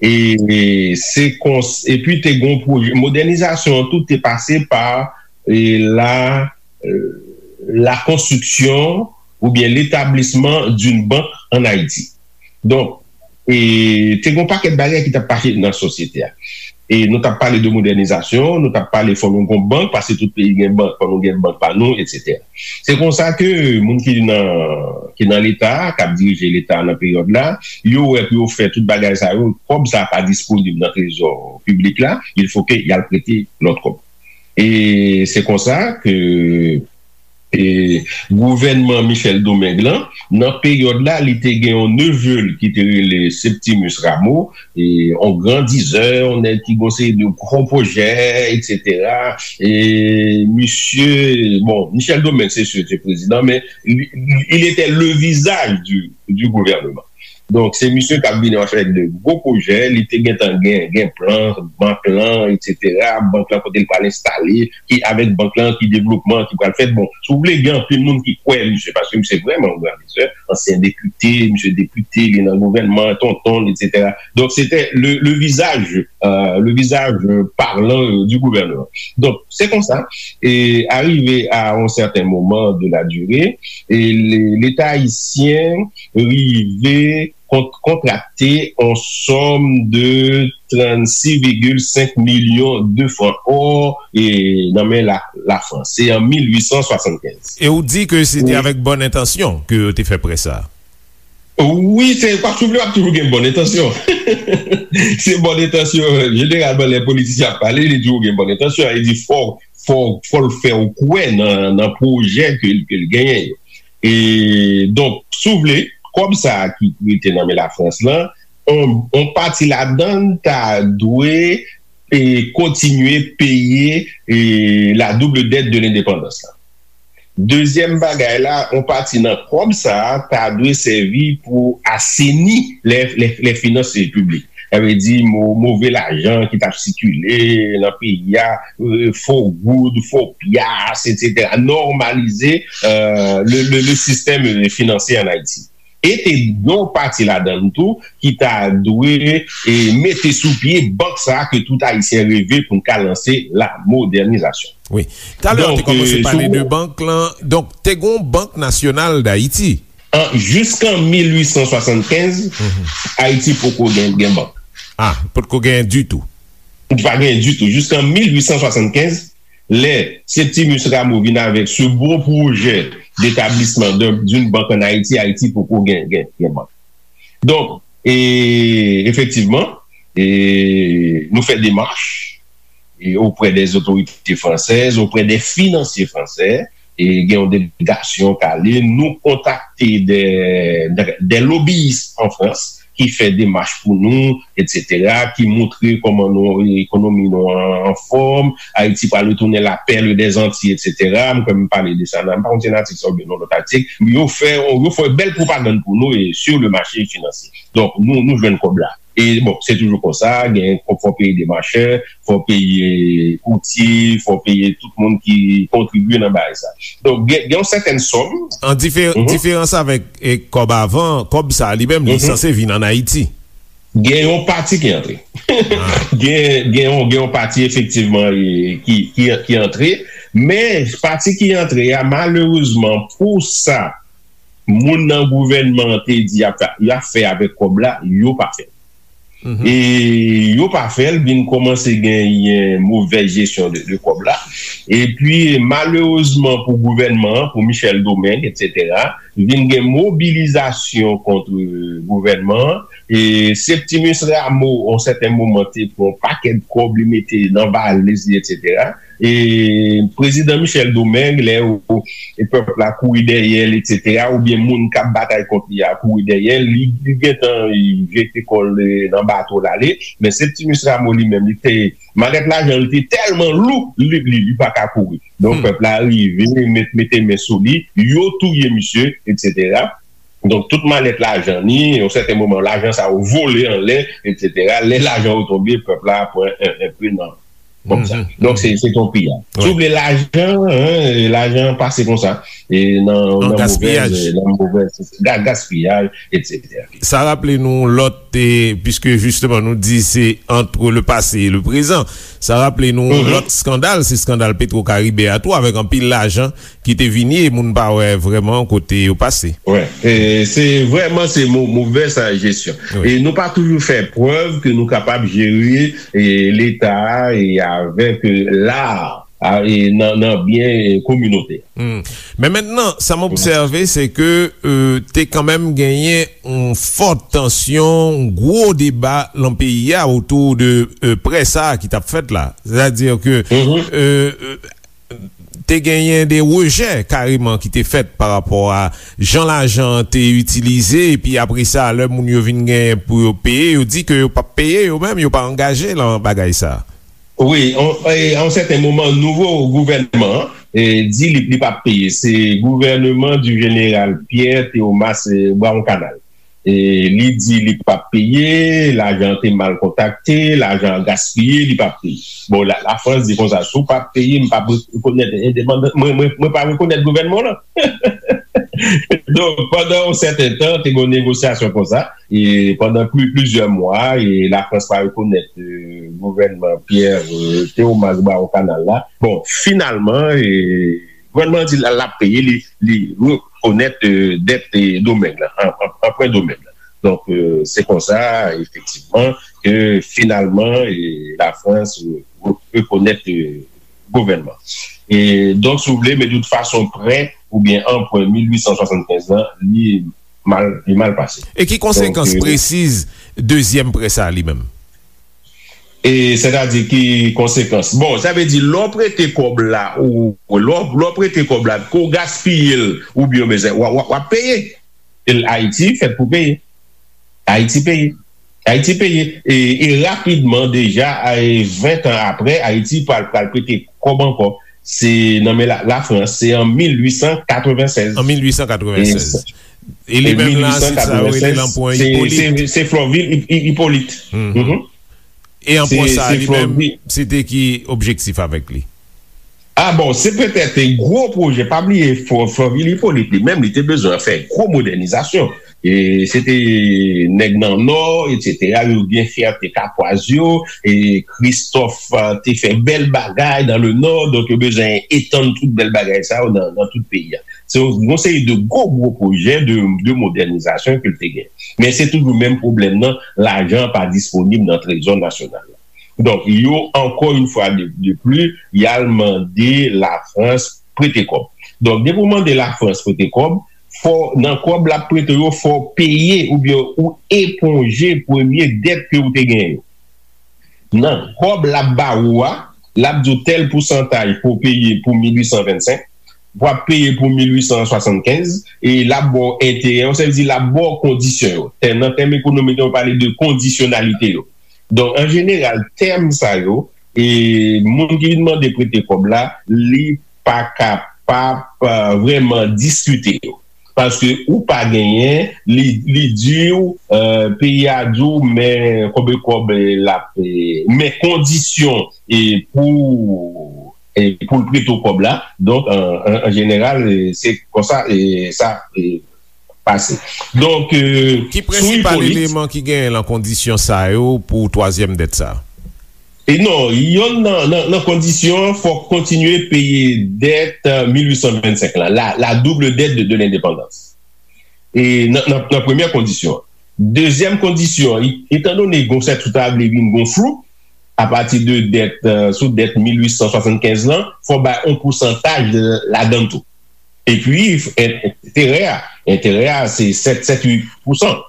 E, e se kons, epi te gon pwojè, modènizasyon an tou te pase pa e, la, euh, la construction oubyen l'établissement d'une banque en Haïti. Donk, e, te gon pakèt bagay ki t ap pase nan sosyete a. E nou t ap pale de modènizasyon, nou t ap pale fò nou gon bank, paske tout peyi gen bank, fò nou gen bank pa nou, etsetera. Se konsa ke moun ki nan, ki nan Leta a, k ap dirije Leta a nan peryòd la, yo wè pou yo fè tout bagay sa yo, kòb sa a pa disponib nan trezò piblik la, il faut que y al prete lòt kòb. E se konsa ke e, gouvènman Michel Domingue lan, nan peryòd la, li te gen yon neve l ki te rele Septimus Rameau, e, yon gran dizè, yon nèg ki gon seri de gwo pwojè, etsetera. E, misye, bon, Michel Domingue, se sir, se prezidan, men li, li, il était le visage du, du gouvernement. Donk, se misye k ap vini avèk de gwo pwojè, li te gentan gen, gen plan, bank lan, etsetera. Bank lan kote l pral enstale, ki avèk bank lan, ki devlopman ki pral fèt. Bon, si w vle, gen anpil moun ki kwè misye, paske misye vrèman yon gran lizè, ansyen depite, misye depite, li nan gouvènman, tonton, etsetera. Donk, se te le, le visage, euh, le visage parlant euh, du gouvernement. Donk, se konsa, e arive a yon sèten moman de la durée, e le, Leta ayisyen rive kont, kontrakte yon sòm de trannsis vigil senk milyon de fran or e, nan men la, Lafrans. Se an mil ui san swasannkenz. E ou di ke se te avèk bòn entansyon ke yo te fè prè sa a? Wi, se, pa souvle, w ap toujou gen bòn entansyon. Se bòn entansyon, jeneralman, lè politisyen ap pale, li toujou gen bòn entansyon. Li di fò, fò, fò l fè w kwè nan, nan pwojè ke, ke l genyen yo. E, donk, si w vle, kòb sa a ki rete nan men Lafrans lan, on, on pati ladan l ta dwe e kontinye peye e la double dette de lendepandans lan. Dezyèm bagay la, on pati nan kòb sa a ta dwe sèvi pou aseni lè, lè, lè finans piblik. Sa vle di mo, move lajan ki t ap sikile nan peyi a, e, fo goud, fo pyas, etsetera. Nòmalize e, le, le, le sistèm e, finansye ann Ayiti. E te gen yon pati ladan l tou ki ta dwe e, mete sou pye bank sa a ke tout Ayisyen reve pou n ka lanse la modènizasyon. Wi. Talè w te kòmanse pale de bank lan. Donk, te gen yon Bank Nasyonal d Ayiti. an, jiskan mil uit san swasannkenz, Ayiti poko gen, gen bank. Ah, potko gen ditou. Li pa gen ditou. Jiskan mil uit san swasannkenz, lè Septimus Rameau vin avèk ce beau projet d'établissement d'un- d'une banque en Haïti, Ayiti poko gen, gen, gen bank. Donk, e, efektivman, e, nou fè demach e, auprès des autorités françaises, auprès des financiers français, e gen yon delegasyon k ale, nou kontakte des, des, des lobbyistes en France ki fè demach pou nou, etsetera, ki montre kòman nou, ekonomi nou an, an fòm, Ayiti pral retounen la perle des Antilles, etsetera. M kwè m pale de sa nan, m pa konn si nan atik sa oubyen nan lòt atik. Yo fè, yo fè bèl pwopagann pou nou e sur le marché financier. Donk, nou, nou jwenn kòb la. E bon, se toujou konsa, gen, fò, fò peye demachè, fò peye koutye, fò peye tout moun ki kontribye nan bagay sa. Donk, gen, gen yon sètèn sòm. An difer-, diferans avèk, e, kòb avan, kòb sa li menm, li sanse vin ann Ayiti. Gen yon pati ki antre. Gen, gen yon, gen yon pati efektivman, e, ki, ki, ki antre, men pati ki antre a, malerezman, pou sa, moun nan gouvènman an te di y ap fè, y ap fè avèk kòb la, yo pa fè l. E yo pa fè l, vin kòmanse genyen movèz jesyon de, de kòb la. Epi, malerezman pou gouvènman an, pou Michel Domingue, etsetera, vin gen mobilizasyon kont gouvènman an. E Septimus Rameau, yon sèten moman, te pran yon pakèt kòb, li mete nan valiz li, etsetera. E prezidan Michel Domingue, lè ou, e pèp la kouri dèyè l, etsetera, oubyen moun k ap batay kont li a kouri dèyè l, li, li gentan, e, jete kò l, e, nan bato l ale. Men Septimus Rameau li menm, li te, malèt lajan li te tèlman lou, li, li, li pa ka kouri. Donk, pèp la rive, met, mete men sou li, yo touye misye, etsetera. Donk, tout malèt lajan ni, yon sèten moman, lajan sa yo vole anlè, etsetera. Lè lajan yo tonbe, pèp la pran en, en pe nan kòb sa. Donk, se, se yon piyaj. Si w vle lajan, en, lajan pase konsa, e nan, nan movèz, nan movèz, ga-, gaspiyaj, etsetera. Sa raple nou lòt, e, piske jisteman nou di se entre le passé et le présent, sa raple nou lòt eskandal, se eskandal Petro Caribe a tou, avèk anpil lajan ki te vini e moun pa wè vrèman kote yo pase. Wi, e, se vrèman se mo-, movèz jesyon. E nou pa toujou fè prèv ke nou kapab jere, e, Leta a, e avèk, e, lar, a, e nan, nan byen, e, kominotè. Men mentnan, sa m obsève, se ke, e, te kanmenm genyen yon fòt tansyon, yon gwo deba nan peyi a otou de, e, prè sa a ki t ap fèt la. Sètadi ke, e, e, te genyen de rejè kareman ki te fèt pa rapò a jan lajan an te itilize, epi apre sa, lè moun yo vin genyen pou yo peye, yo di ke yo p ap peye yo menm, yo pa angaje nan bagay sa. Wi, on, e, a yon sèten moman, nouvo gouvènman an, e, di li, li p ap peye. Se gouvèneman di jeneral Pierre Théomas, e, Brawon Kanal. E li di li p ap peye, lajan an te mal kontakte, lajan an gaspiye, li p ap peye. Bon, la, Lafrans di konsa, si w p ap peye, m p ap rekonèt endepandans, mwen, mwen, mwen pa rekonèt gouvènman w lan. Donk, pandan yon sèten tan, te gen yon negosyasyon konsa, e pandan pli, plizyè mwa, e Lafrans pa rekonèt, e, gouvènman Pierre, e, Théomas Brawon Kanal la. Bon, finalman, e, gouvènman an di l, l ap peye, li, li rekonèt, e, dèt, e, Domeng lan, an, an, anprè Domeng lan. Donk, e, se konsa, efektivman, ke finalman, e, Lafrans, e, re-, rekonèt, e, gouvènman. E, donk, si w vle, men de tout fason, prè oubyen anprè mil uit san swasannkenz lan, li mal, li mal pase. E ki konsekans presiz dezyèm prè sa a li menm? E sètadi ki konsekans? Bon, sa vle di, lè w prete kòb la, ou, lè w, lè w prete kòb la, ke w gaspiye l, oubyen w bezwen, w, w, w ap peye. E Ayiti fèt pou peye. Ayiti peye. Ayiti peye. E, e rapidman, deja, e ven tan apre, Ayiti pral, pral prete kòb ankò. Se nan men la, Lafrans, se an mil uit san katrevennsèz. An mil uit san katrevennsèz. E li menm la, se sa yo rele lanpwen Ipolit. Se, se Florvil Hip-, Hip-, Hippolyte. E anpwen sa, li menm, se te ki objektif avèk li? Ah bon, se petèt gwo pwojè. Pa bliye, Fò, Fòvil Ipolit li menm, li te bezwen fè gwo modènizasyon. E se te nèg nan Nò, etsetera, yo gen fyète Kapwaz yo, e Kristòf, ah, te fè bèl bagay dans le Nord, donk yo bezwen etann tout bèl bagay sa yo nan, nan tout peyi a. Se yon, yon seri de gwo, gwo pwojè de, de modènizasyon ke l te gen. Men se toujou menm pwoblèm nan, lajan pa disponib nan trezò nasyonal la. Donk, yo, ankò yon fwa de, de pli, y al mande Lafrans prete kòb. Donk, depi w mande Lafrans prete kòb, fò, nan kòb l ap prete yo, fò w peye oubyen ou eponje premye dèt ke w te genyen yo. Nan kòb l ap ba ou a, l ap di w tèl pousantaj pou w peye pou mil uit san vennsenk, w ap peye pou mil uit san swasannkenz, e l ap ba w enterè yo, sa vle di l ap ba w kondisyon yo. Tèm, nan tèm ekonomik yo pale de kondisyonalite yo. Donk, an jeneral, tèm sa yo, e moun ki vin mande prete kòb la, li pa kapab, euh, vrèman diskite yo. Paske ou pa genyen, li, li di w, euh, peyi a di w, men konbe kòb, e, l ap, e, men kondisyon, e, pou, e, pou l prete w kòb la. Donk, an, an, an jeneral, e, se konsa, e, sa, e, pase. Donk, e, Ki sou prensipal Ipolit, eleman ki genyen nan kondisyon sa yo pou twazyèm dèt sa? E non, yonn nan, nan, nan kondisyon an, fòk kontinye peye dèt, euh, mil uit san vennsenk la, la, la double dette de, de l'indépendance. E nan, nan, nan premyè kondisyon an. Dezyèm kondisyon an, i- etandone gon sèt ou ta vle vin gon flou, apati de dèt, euh, sou dèt mil uit san swasannkenz lan, fò bay yon pousantaj ladan l tou. Epi, en- enterè a, enterè a, se sèt, sèt, uit pousan.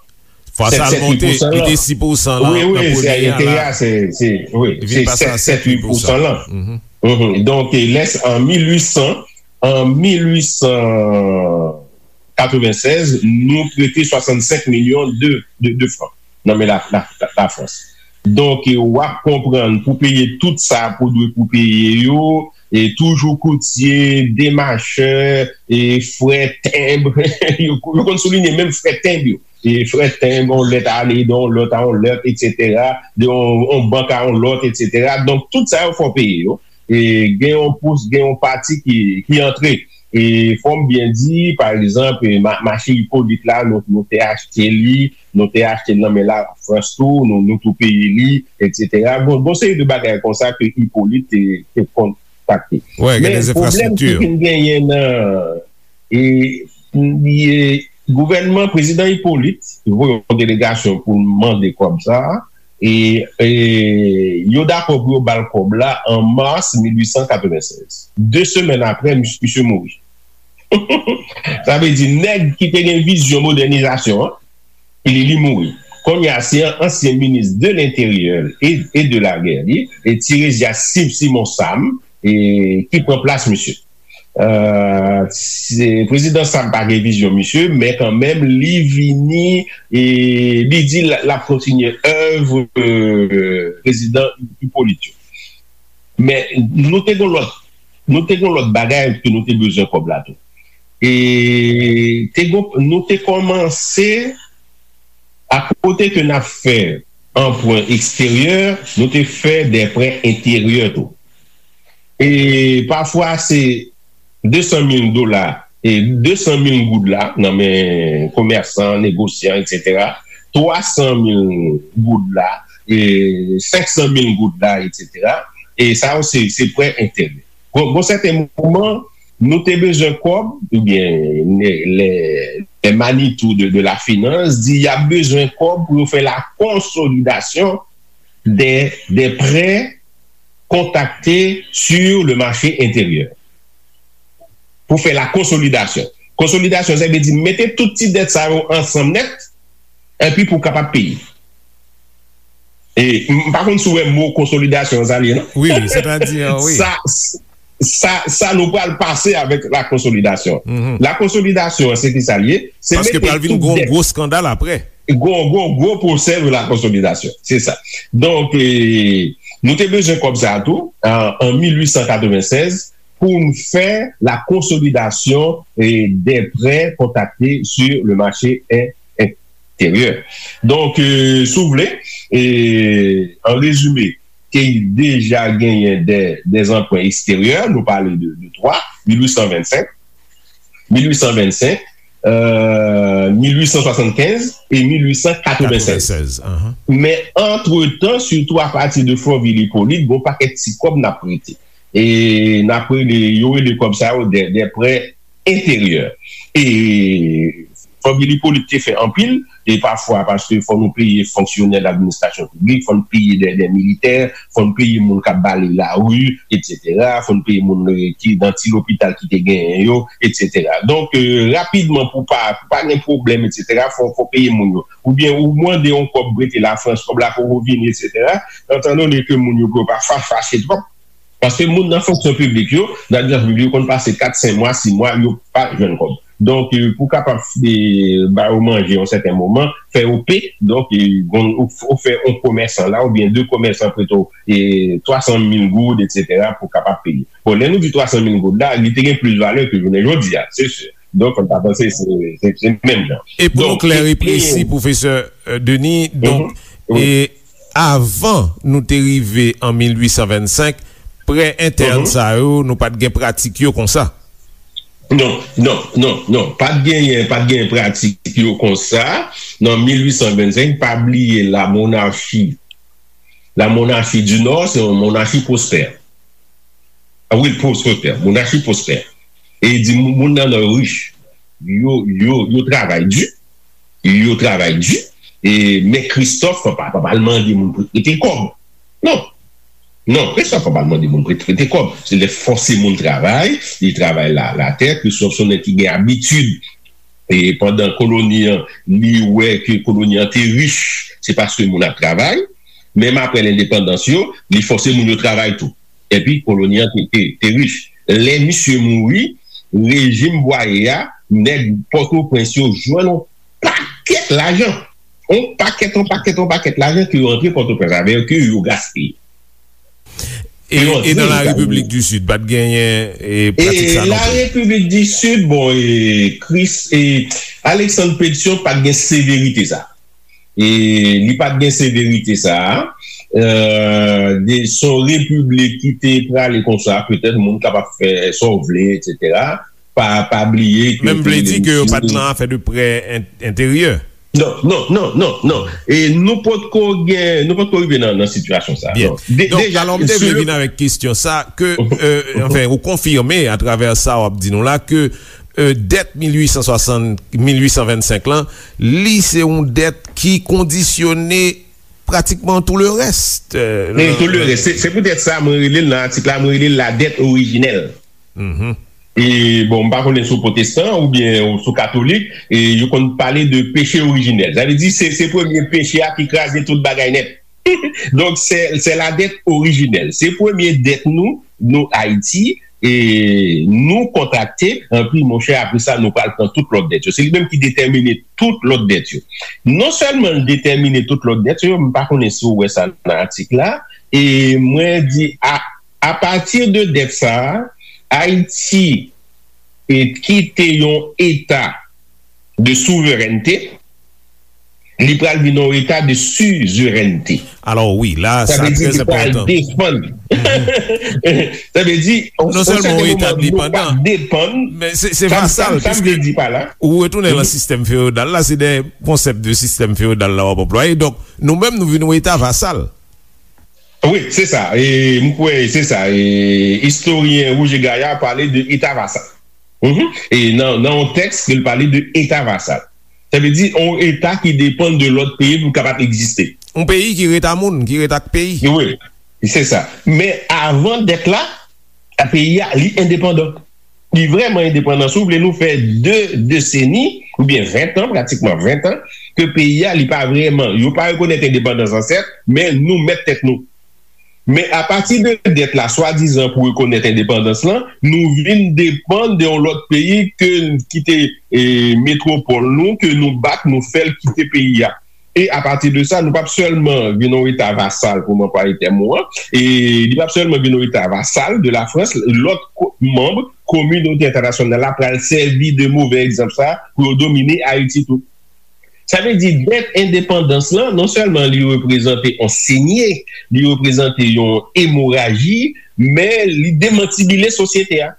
Fwa sa l monte, li te sis pousan lan nan premye a la. Wi, wi, se enterè a, se, se, wi, se sèt, sèt, uit pousan lan. Mhm. Mhm. Donk, e lès an mil uit san, an mil uit san katrevennsèz, nou prete swasannsenk milyon de, de, de fran nan men la, la, la, Lafrans. Donk, e w ap konprann pou peye tout sa pou dwe pou peye yo, e toujou koutye, demachè, e frè tenb, yo, yo konn soulinye menm frè tenb yo. E frè tenb, yon lèt ale de yon lòt a yon lòt, etsetera, de yon, yon bank a yon lòt, etsetera. Donk, tout sa yo fò peye yo. E gen yon pous, gen yon pati ki, ki antre. E fò m byen di, pa egzanp, e ma- mache Ipolit la, nou, nou te achte li, nou te achte l nan men Lafrans tou, nou, nou tou peye li, etsetera. Bon, bon seri de bagay konsa ke Ipolit te, te kontakte. Wi, gen de enfrastrikti. Men pwoblèm ki vin genyen nan, e, e, gouvènman prezidan Ipolit voye yon delegasyon pou l mande kòb sa a, e, e yo dakò pou yo ba l kòb la an mas mil uit san katrevennsèz. De semèn apre, mis- misye mouri. Sa vle di, nèg ki te gen vizyon modènizasyon an, li, li mouri. Kounye a, se an- ansyen minis de lenteryè e, e de lagè, li, e Tiresias Simon Sam, e, ki pran plas misye. Euh, se- prezidan Sam pa gen vizyon misye, men kanmenm, li vini, e li di l, l ap kontinye èv, euh, prezidan Ipolit yo. Men nou te gon lòt, nou te gon lòt bagay ke nou te bezwen kòb la tou. E te gon, nou te kòmanse, akote ke n ap fè anprè eksteryè, nou te fè de prè enteryè tou. E pafwa se de san mil dola, e de san mil goud la, nan men komèsan, negosyan, etsetera, twa san mil goud la, e senk san mil goud la, etsetera. E sa yo se, se prè enteryè. Bon, bon sèten moman, nou te bezwen kòb, oubyen le, le, le Manitou de, de la finans di y ap bezwen kòb pou yo fè la konsolidasyon de, de prè kontrakte sur le marché intérieur. Pou fè la konsolidasyon. Konsolidasyon, sa vle di mete tout ti dèt sa yo ansanm nèt, epi pou w kapab peye. E m pa konn si w wè mo konsolidasyon sa l ye, non? Wi, wi, sètadi, wi. Sa, sa, sa nou pral pase avèk la konsolidasyon. Mhm. La konsolidasyon, se ki sa l ye? Se Paske mete pral vin tout gon dèt. Gwo skandal apre. Gon, gon gwo pwosè de la konsolidasyon. Se sa. Donk, e, nou te bezwen kòb sa a tou, an, an mil uit san katrevennsèz, pou n fè la konsolidasyon, e, des prêts contractés sur le marché in- enteryè. Donk, e, si w vle, e, an rezime, te deja genyen de, de anprè eksteryè, nou pale de, de twa, mil uit san vennsenk, mil uit san vennsenk, euh, mil uit san swasannkenz e mil uit san katrevennsèz. Men antretan, sitou apati de Fonvil Ipolit, gon pakèt ti kòb n ap prete. E n ap rele, yo rele kòb sa yo de, de prè enteryè. E Fonvil Ipolit te fè anpil, e pafwa paske fò nou peye fonksyonè ladministrasyon piblik, fò nou peye de, de militè, fò nou peye moun k ap bale lari, etsetera, fò nou peye moun, eh, ki nan ti lopital ki te genyen yo, etsetera. Donk, eh, rapidman, pou pa, pou pa gen pwoblèm, etsetera, fò, fò peye moun yo. Oubyen ou mande yon kòb prete Lafrans, kòb la poko vini, etsetera. Etandone ke moun yo, pou yo pa fa-, fache twòp, paske moun nan fonksyon piblik yo, nan administrasyon piblik yo, konn pase kat, senk mwa, sis mwa, yo pa jwenn kòb. Donk, eh, pou kapab, eh, ba yo manje yon sèten moman, fè yo pe, donk, eh, gon, ou, ou fè yon komèsan la, oubyen de komèsan prete w, eh, twa san mil goud, etsetera, pou kapab peye. Bon, lè nou di twa san mil goud la, li te gen plis valè ke jounen jodi a, se si. Donk, fò n ta panse se, se, se menm jan. E pou nou klè e presi, pwofesè, eh, Denis, donk, e avan nou te rive an mil uit san vennsenk, prè entèn sa yo, nou pa t gen pratik yo konsa. Non, non, non, non. Pa t genyen, pa t genyen pratik yo konsa. Nan mil uit san vennsenk, pa bliye la monarchie, la monarchie du Nord, se yon monarchi pwospè. Ah wi, pwospè, monarchi pwospè. E di moun, moun nan nan rich. Yo, yo, yo travay di. Yo travay di. E, men Christophe pa, pa, pa al mande moun pou prete kòb. Non. Non, Christophe pa al mande moun pou prete kòb. Se lè fòse moun travay, li travay la, latè, Christophe se yon nèg ki gen abitid. E pandan koloni an, li wè ke koloni an te rich, se paske moun ap travay. Menm apre lendepandans yo, li fòse moun yo travay tou. Epi koloni an te, te, te rich. Lè misye mouri, rejim Bwaye a, nèg Pòtoprens yo jwenn yon pakèt lajan. Yon pakèt, yon pakèt, yon pakèt lajan ke yo antre Pòtoprens avè yo, ke yo gaspiye. E, e nan la Repiblik di Sid, pa t genyen, e, pratik sa non plis. E la Repiblik di Sid, bon, e, Chris, e, Alexandre Pétion pa t gen severite sa. E li pa t gen severite sa a. Euh, de, se yon repiblik ki te prale konsa, petèt moun kapab fè sa w vle, etsetera. Pa, pa bliye ke menm vle di ke yo pa t nan afè de prè en-, enteryè. Non, non, non, non, non. E nou potko gen, nou potko rive nan, nan sitiyasyon sa a. Byen. Non. De-, donk, deja, alò, m te vle vin avèk kesyon sa ke, euh, anfen, ou konfime atravè sa w ap di nou la ke, euh, dèt mil uit san swasant, mil uit san vennsenk lan, li se yon dèt ki kondisyone pratikman tout le reste, euh, wi, tout le reste. Se, se poutèt sa mwen rele l nan atik la, mwen rele l la dèt orijinèl. Mhm. E, bon, m pa konnen si w pwotestan oubyen si w katolik, e yo konn pale de peche orijinèl. Sa vle di, se, se premye peche a ki kraze tout bagay nèt. Donk, se, se la dèt orijinèl. Se premye dèt nou, nou Ayiti, e nou kontrakte, anpi, monchè, apre sa, nou pral pran tout lòt dèt yo. Se li menm ki detèmine tout lòt dèt yo. Non sèlman l detèmine tout lòt dèt yo, m pa konnen si w wè sa nan atik la, e mwen di, a, apati de dèt sa a, Ayiti e kite yon eta de souverènte, li pral vin yon eta de sizerènte. Alò, wi, la, sa vle di li pral depann. Sa vle di, non sèlman yon eta endepandan, men se, se vasal, piske ou retounen nan sistèm feyodal la, se de konsèp de sistèm feyodal la w ap anplwaye. Donk, nou menm, nou vin yon eta vasal. Wi, se sa. E m kwè se sa. E istoryen Roger Gaillard pale de eta vasal. Mhm. E nan, nan yon tèks ke l pale de eta vasal. Sa vle di yon eta ki depann de lòt peyi pou l kapab egziste. Yon peyi ki ret a moun, ki ret ak peyi. Wi, se sa. Men avan dèt la, peyi a, li endepandan. Li vrèman endepandan. Si w vle, nou fè de deseni, oubyen ven tan, pratikman ven tan, ke peyi a, li pa vrèman, yo pa rekonèt endepandans lan, sèt, men nou mèt tèt nou. Men apati de dèt la, swadizan pou rekonèt endepandans lan, nou vin depann de yon lòt peyi ke, ki te, e, metwopòl nou, ke nou bat, nou fè l kite peyi a. E apati de sa, nou p ap sèlman vin yon eta vasal, pou m anplwaye tèm ou an, e li p ap sèlman vin yon eta vasal de Lafrans, lòt ko-, manm kominote entènasyonal la pral sèvi de move egzanp sa pou yo domine Ayiti tou. Sa vle di, dèt endepandans lan, non sèlman li reprezante yon senye, li reprezante yon emoraji, men li demantibile sosyete a.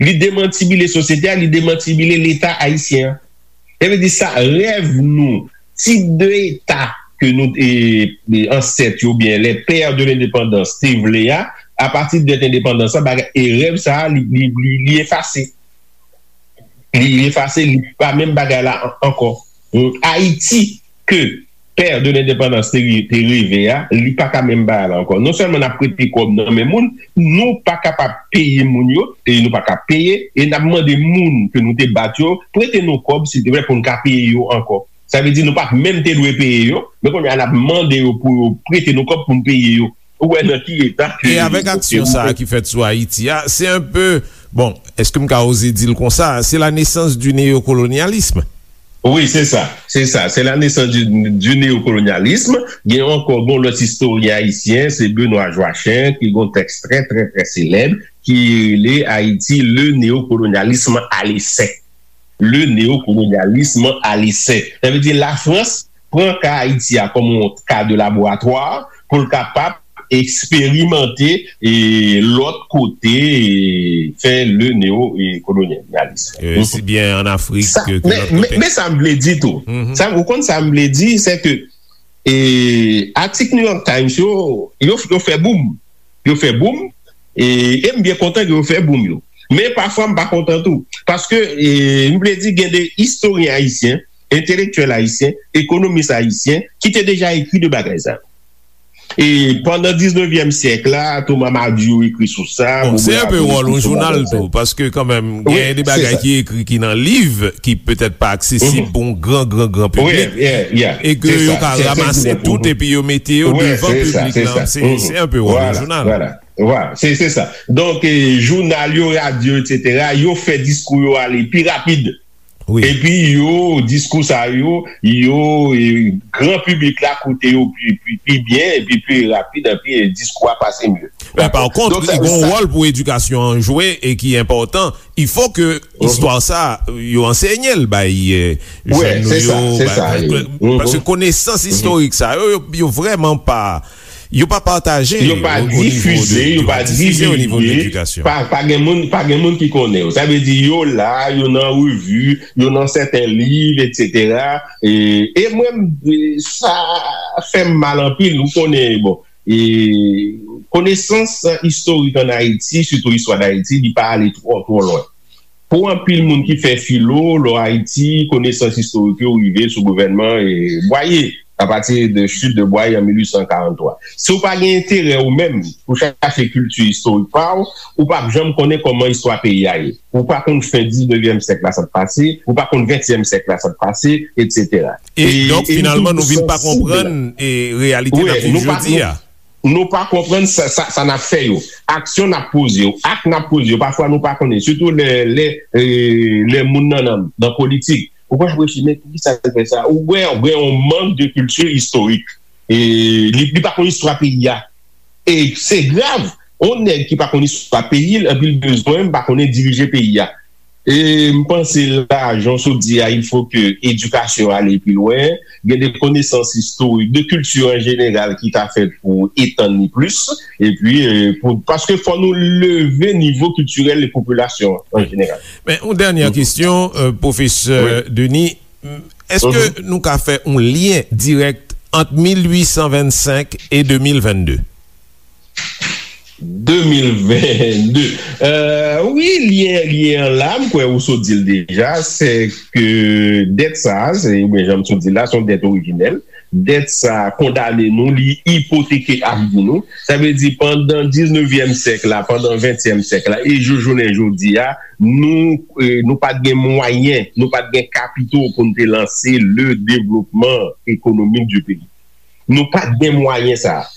Li demantibile sosyete a, li demantibile Leta ayisyen an. Sa vle di sa, rèv nou, tip de Eta ke nou, e, e, ansèt yo, oubyen les pères de l'indépendance te vle a, apati de dèt endepandans la, bagay, e rèv sa a, li, li, li, li efase. Li, li efase, li pa menm bagay la an-, ankò. Ayiti ke pè de lendepandans te, te reve a, li pa ka menm bagay la ankò. Non sèlman n ap prete kòb nan men moun, nou pa kapab peye moun yo, e nou pa ka peye, e n ap mande moun ke nou te bat yo, prete nou kòb, silteplè, pou n ka peye yo ankò. Sa vle di nou pa menm te dwe peye yo, men kounye a n ap mande yo pou yo prete nou kòb pou n peye yo. Ou wè nan ki eta ke... E avèk aksyon sa a ki fèt sou Ayiti a, se un peu, bon, èske m ka oze di l konsa, c'est la naissance du néocolonialisme. Wi, se sa, se sa. C'est la naissance du, du néocolonialisme. Gen ankò, gon lòt istoryen ayisyen, se Benoît Joachim, ki gon tèks trè, trè, trè selèb, ki rele Haïti, le néocolonialisme à l'essai. Le néocolonialisme à l'essai. Sa vle di Lafrans pran ka Ayiti a kòm yon ka de laboratwa pou l kapab eksperimante e lòt kote, e fè le néocolonialisme. E, si byen an Afrik ke, ke lòt kote. Men sa m vle di tou, sa, ou konn sa m vle di, se ke, e, atik New York Times yo, yo, yo fè boum. Yo fè boum, e, e m byen kontan ke yo fè boum yo. Men pafwa m pa kontan tou. Paske, e, m vle di gen de istoryen ayisyen, entelektyèl ayisyen, ekonomis ayisyen, ki te deja ekri de bagay sa yo. E pandan diznevyèm syèk la, Thomas Madiou ekri sou sa, Bon, se Robert un peu Apollon wòl ekri yon sou jounal bagay sa yo. Tou, paske kanmenm, Wi, gen de se bagay sa. Ki ekri ki nan liv, ki petèt pa aksesib Mhm. pou yon gran, gran, gran Wi, piblik, yeah, yeah, e ke se yo sa, ka se, se, ranmase se, tout, mhm. epi yo mete yo Wi, devan se sa, piblik se lan. sa. Se, Mhm. se un peu wòl yon Vwala, jounal. vwala, vwala. Se, se sa. Donk, e, jounal yo, radyo, etsetera, yo fè diskou yo ale pi rapid. Wi. Epi yo, diskou sa yo, yo, e, gran piblik la koute yo pi, pi, pi byen, epi pi rapid, epi, e, diskou a pase mye. Men pa kont, Donk, sa, li gon sa wòl pou edikasyon an jwe e ki enpòtan. Il faut que Mhm. istwa sa, yo ansenye l bay, e, Wi, jèn nou se sa, yo, se bay, sa, bay, e, Mhm. paske konesans Mhm. istorik sa yo, yo, yo vrèman pa, yo pa pataje Yo pa o, o nivo difize, de, yo yo pa pa difize o nivo de divulge, ledikasyon. pa, pa gen moun, pa gen moun ki konnen yo. Sa vle di yo la, yo nan revi, yo nan sèten liv, etsetera. E, e mwen, m, e, sa fè m mal anpil, ou konnen, bon, e konesans istorik ann Ayiti, sitou istwa d Ayiti, li pa ale twò, twò lwen. Pou anpil moun ki fè filo, lò Ayiti, konesans istorik yo rive sou gouvènman, e, Bwaye, apati de chit de Bwaye an mil uit san karant twa. Si w pa gen enterè ou menm pou chache kilti istorik pa w, ou p ap janm konnen kòman istwa peyi a ye. Ou pa konn fen diznevyèm syèk la sa t pase, ou pa konn ventyèm syèk la sa t pase, etsetera. E E, donk, e finalman, nou vin pa sansible. konprann, e, reyalite Wi, n ap viv nou pa, jodi nou, a. Nou pa konprann sa, sa, sa n ap fè yo. Aksyon n ap poze yo, ak n ap poze yo, pafwa nou pa konnen. Sitou lè, lè, e, lè moun nan, nan, nan politik. Ou konn ap reflechi, men poukisa l fè sa? Ou gen, ou gen yon mank de kilti istorik. E li, li pa konn istwa peyi a. E se grav. Yon nèg ki pa konn istwa peyi l, epi l bezwen pa konnen dirije peyi a. E m panse la, jan w sot di a, il faut que edikasyon ale pi lwen, gen de konesans istorik, de kilti an jeneral ki ta fèt pou etann li plis, epi, e, pou, paske fò nou leve nivo kiltirèl de popilasyon an, an Wi. jeneral. Men, yon dènyè kesyon, e, pwofesè Wi. Denis, èske Mhm. nou ka fè yon lyen dirèk ant mil uit san vennsenk e de mil vennde? De mil vennde. E, wi, lyen, lyen an la, m kwè ou sot di l deja, se ke dèt sa a, se, oubyen jan m sot di l la, se yon dèt orijinèl. Dèt sa a kondane nou, li ipoteke avni nou. Sa vle di, pandan diznevyèm syèk la, pandan ventyèm syèk la, e jou, jounen jodi a, nou, e, nou pa t gen mwayen, nou pa t gen kapito pou n te lanse le développement économique du pays. Nou pa t gen mwayen sa a.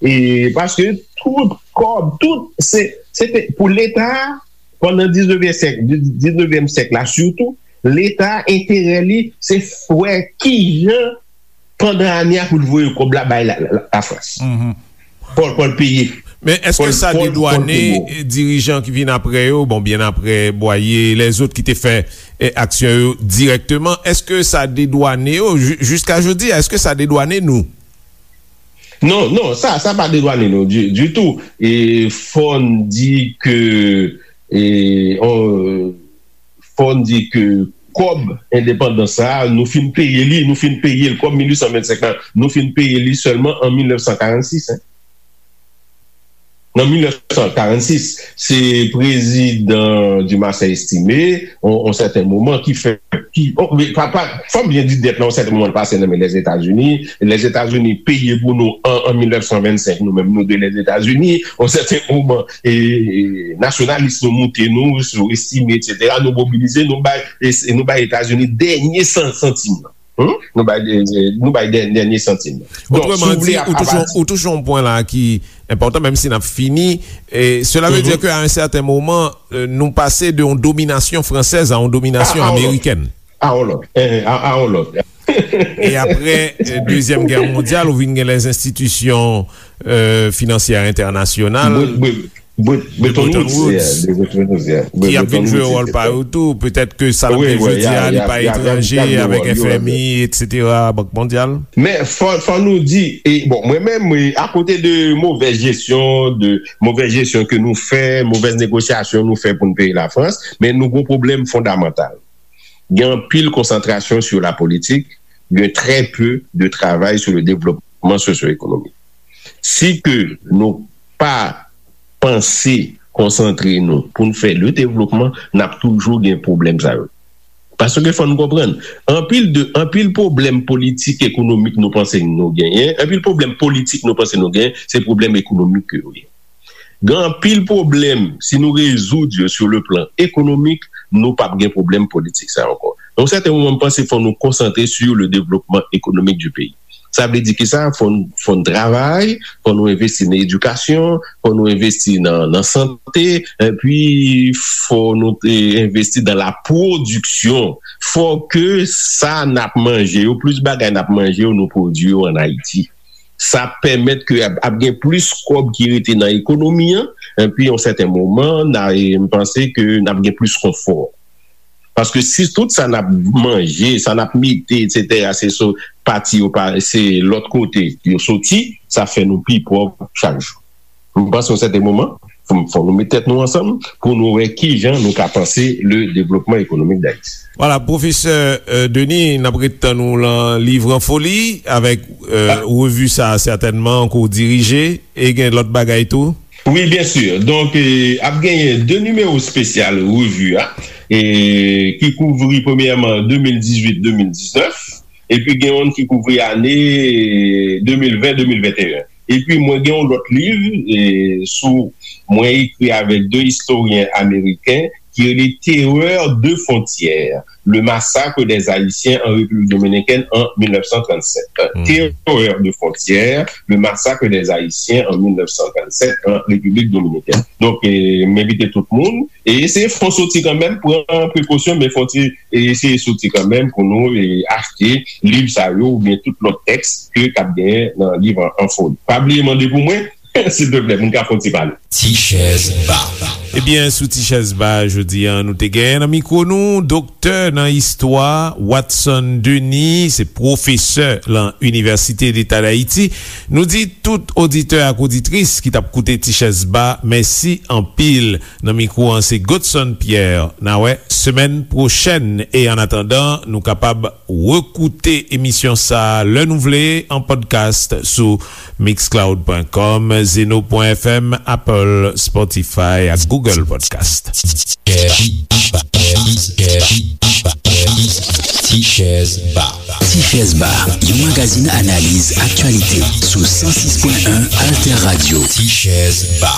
E paske tout kòb, tout, se, se te, pou Leta, pandan diznevyèm syèk, diznevyèm syèk la sitou, Leta enterè li, se wè kijan pandan ane a pou l voye kòb la bay la, la, la, Lafrans. Mhm. Pou, pou l peye. Men èske sa dedwane dirijan ki vin apre yo, bon, byen apre Bwaye, lèzòt ki te fè aksyon yo dirèkteman, èske sa dedwane yo jiska jodi a, èske sa dedwane nou? Non, non, sa sa pa dedwane nou ditou. E fò n di ke e fò n di ke kòb endepandans sa a, nou fin peye li, nou fin peye l kòb mil uit san vennsenk lan, nou fin peye li sèlman an mil nèf san karannsis. Nan mil nèf san karannsis, se prezidan Dumarsais Estimé, yon sèten moman, ki fè ki, fò m byen di dèt la, yon sèten moman, l pase nan men Lèzetazini. Lèzetazini peye pou nou an mil nèf san vennsenk, nou menm nou de Lèzetazini. Yon sèten moman, nasyonalis nou moute nou, sou Estimé, etsetera, nou mobilize, nou bay Etazini dènye santim nan. Nou bay dènye santim nan. Donk, si w vle, ou touche yon pwen la ki enpòtan, menm si n ap fini. Cela veut dire que à un certain moment, nou pase de yon dominasyon fransèz a yon dominasyon amerikèn. A yon lòt. A yon lòt. E apre Dezyèm Gè Mondyal, ou vin gen lèzenstitisyon finansyè entènasyonal. Bretton Woods, ki ap vin jwe wòl pa yo tou. Petèt ke sa n ap gen jodi a, li pa etranje avèk F M I, etsetera, Bank Mondyal. Men fò nou di, bon, mwen menm, akote de movèz jesyon, de movèz jesyon ke nou fè, movèz negosyasyon nou fè pou n peye Lafrans, men nou gen yon pwoblèm fondamantal. Gen anpil konsantrasyon sou lapolitik, gen trè pe de travay sou le devlopman sosyo-ekonomik. Si ke nou pa panse konsantre nou pou n fè le devlopman, n ap toujou gen pwoblèm sa yo. Paske fò n konprann, anpil de anpil pwoblèm politik ekonomik nou panse nou genyen, anpil pwoblèm politik nou panse nou genyen, se pwoblèm ekonomik ke yo ye. Gen anpil pwoblèm, si nou rezoud yo sou le plan ekonomik, nou p ap gen pwoblèm politik sa ankò. Nan yon sèten moman, m panse fò nou konsantre sou le devlopman ekonomik di peyi. Sa vle di kisa? Fò n fò n travay, fò nou envesti nan edikasyon, fò nou envesti nan nan sante, epi fò nou envesti nan la pwodiksyon. Fò ke sa n ap manje yo, plis bagay n ap manje yo, nou pwodui yo ann Ayiti. Sa ap pèmèt ke ap gen plis kòb ki rete nan ekonomi an, epi yon sèten moman, m panse ke n ap gen plis konfò. Paske si tout sa n ap manje, sa n ap mete, etsetera, se sou pati yo pa, se lòt kote yo soti, sa fè nou pi pòv chak jou. M panse yon sèten moman, fò nou met tèt nou ansanm pou nou wè kijan nou ka panse le devlopman ekonomik Dayiti. Vwala, Pwofesè Denis, n ap ret tann ou lan Livre en folie avèk revi sa a sètènman ke w dirije, e gen lòt bagay tou? Wi, byen si. Donk, ap genyen de nimewo espesyal revi a, ki kouvri premyèman de mil dizuit, de mil diznèf, epi gen youn ki kouvri ane de mil ven, de mil venteyen. Epi mwen gen yon lòt liv sou mwen ekri avèk de istoryen ameriken ki rele Terreur de frontières, le massacre des Haïtiens en République dominicaine en mille neuf cent trente-sept. Terreur de frontières, le massacre des Haïtiens en mille neuf cent trente-sept en République dominicaine. Donk, m envite tout moun e eseye fè yon soti kanmenm, pran prekosyon, men fè yon ti eseye soti kanmenm pou nou achte liv sa yo oubyen tout lòt tèks ke k ap genyen nan Livre en folie. Pa bliye mande pou mwen, silteplè, pou n ka fè yon ti pale. Ti chèz ba. Ebyen, sou Ti chèz ba jodi a, nou te genyen nan mikwo nou doktè nan istwa Watson Denis, se pwofesè lan Inivèsite Deta Dayiti. Nou di tout oditè ak oditris ki t ap koute Ti chèz ba, mèsi anpil. Nan mikwo an se Godson Pierre. N a wè semèn pwochèn e annatandan nou kapab rekoute emisyon sa a lè nou vle an podcast sou mixcloud.com, zeno.fm, Apple, Spotify ak Google Podcast. Ti Chèz Ba. Ti Chèz Ba, yon magazin analiz aktyalite sou san sis pwen en Alter Radio. Ti Chèz Ba.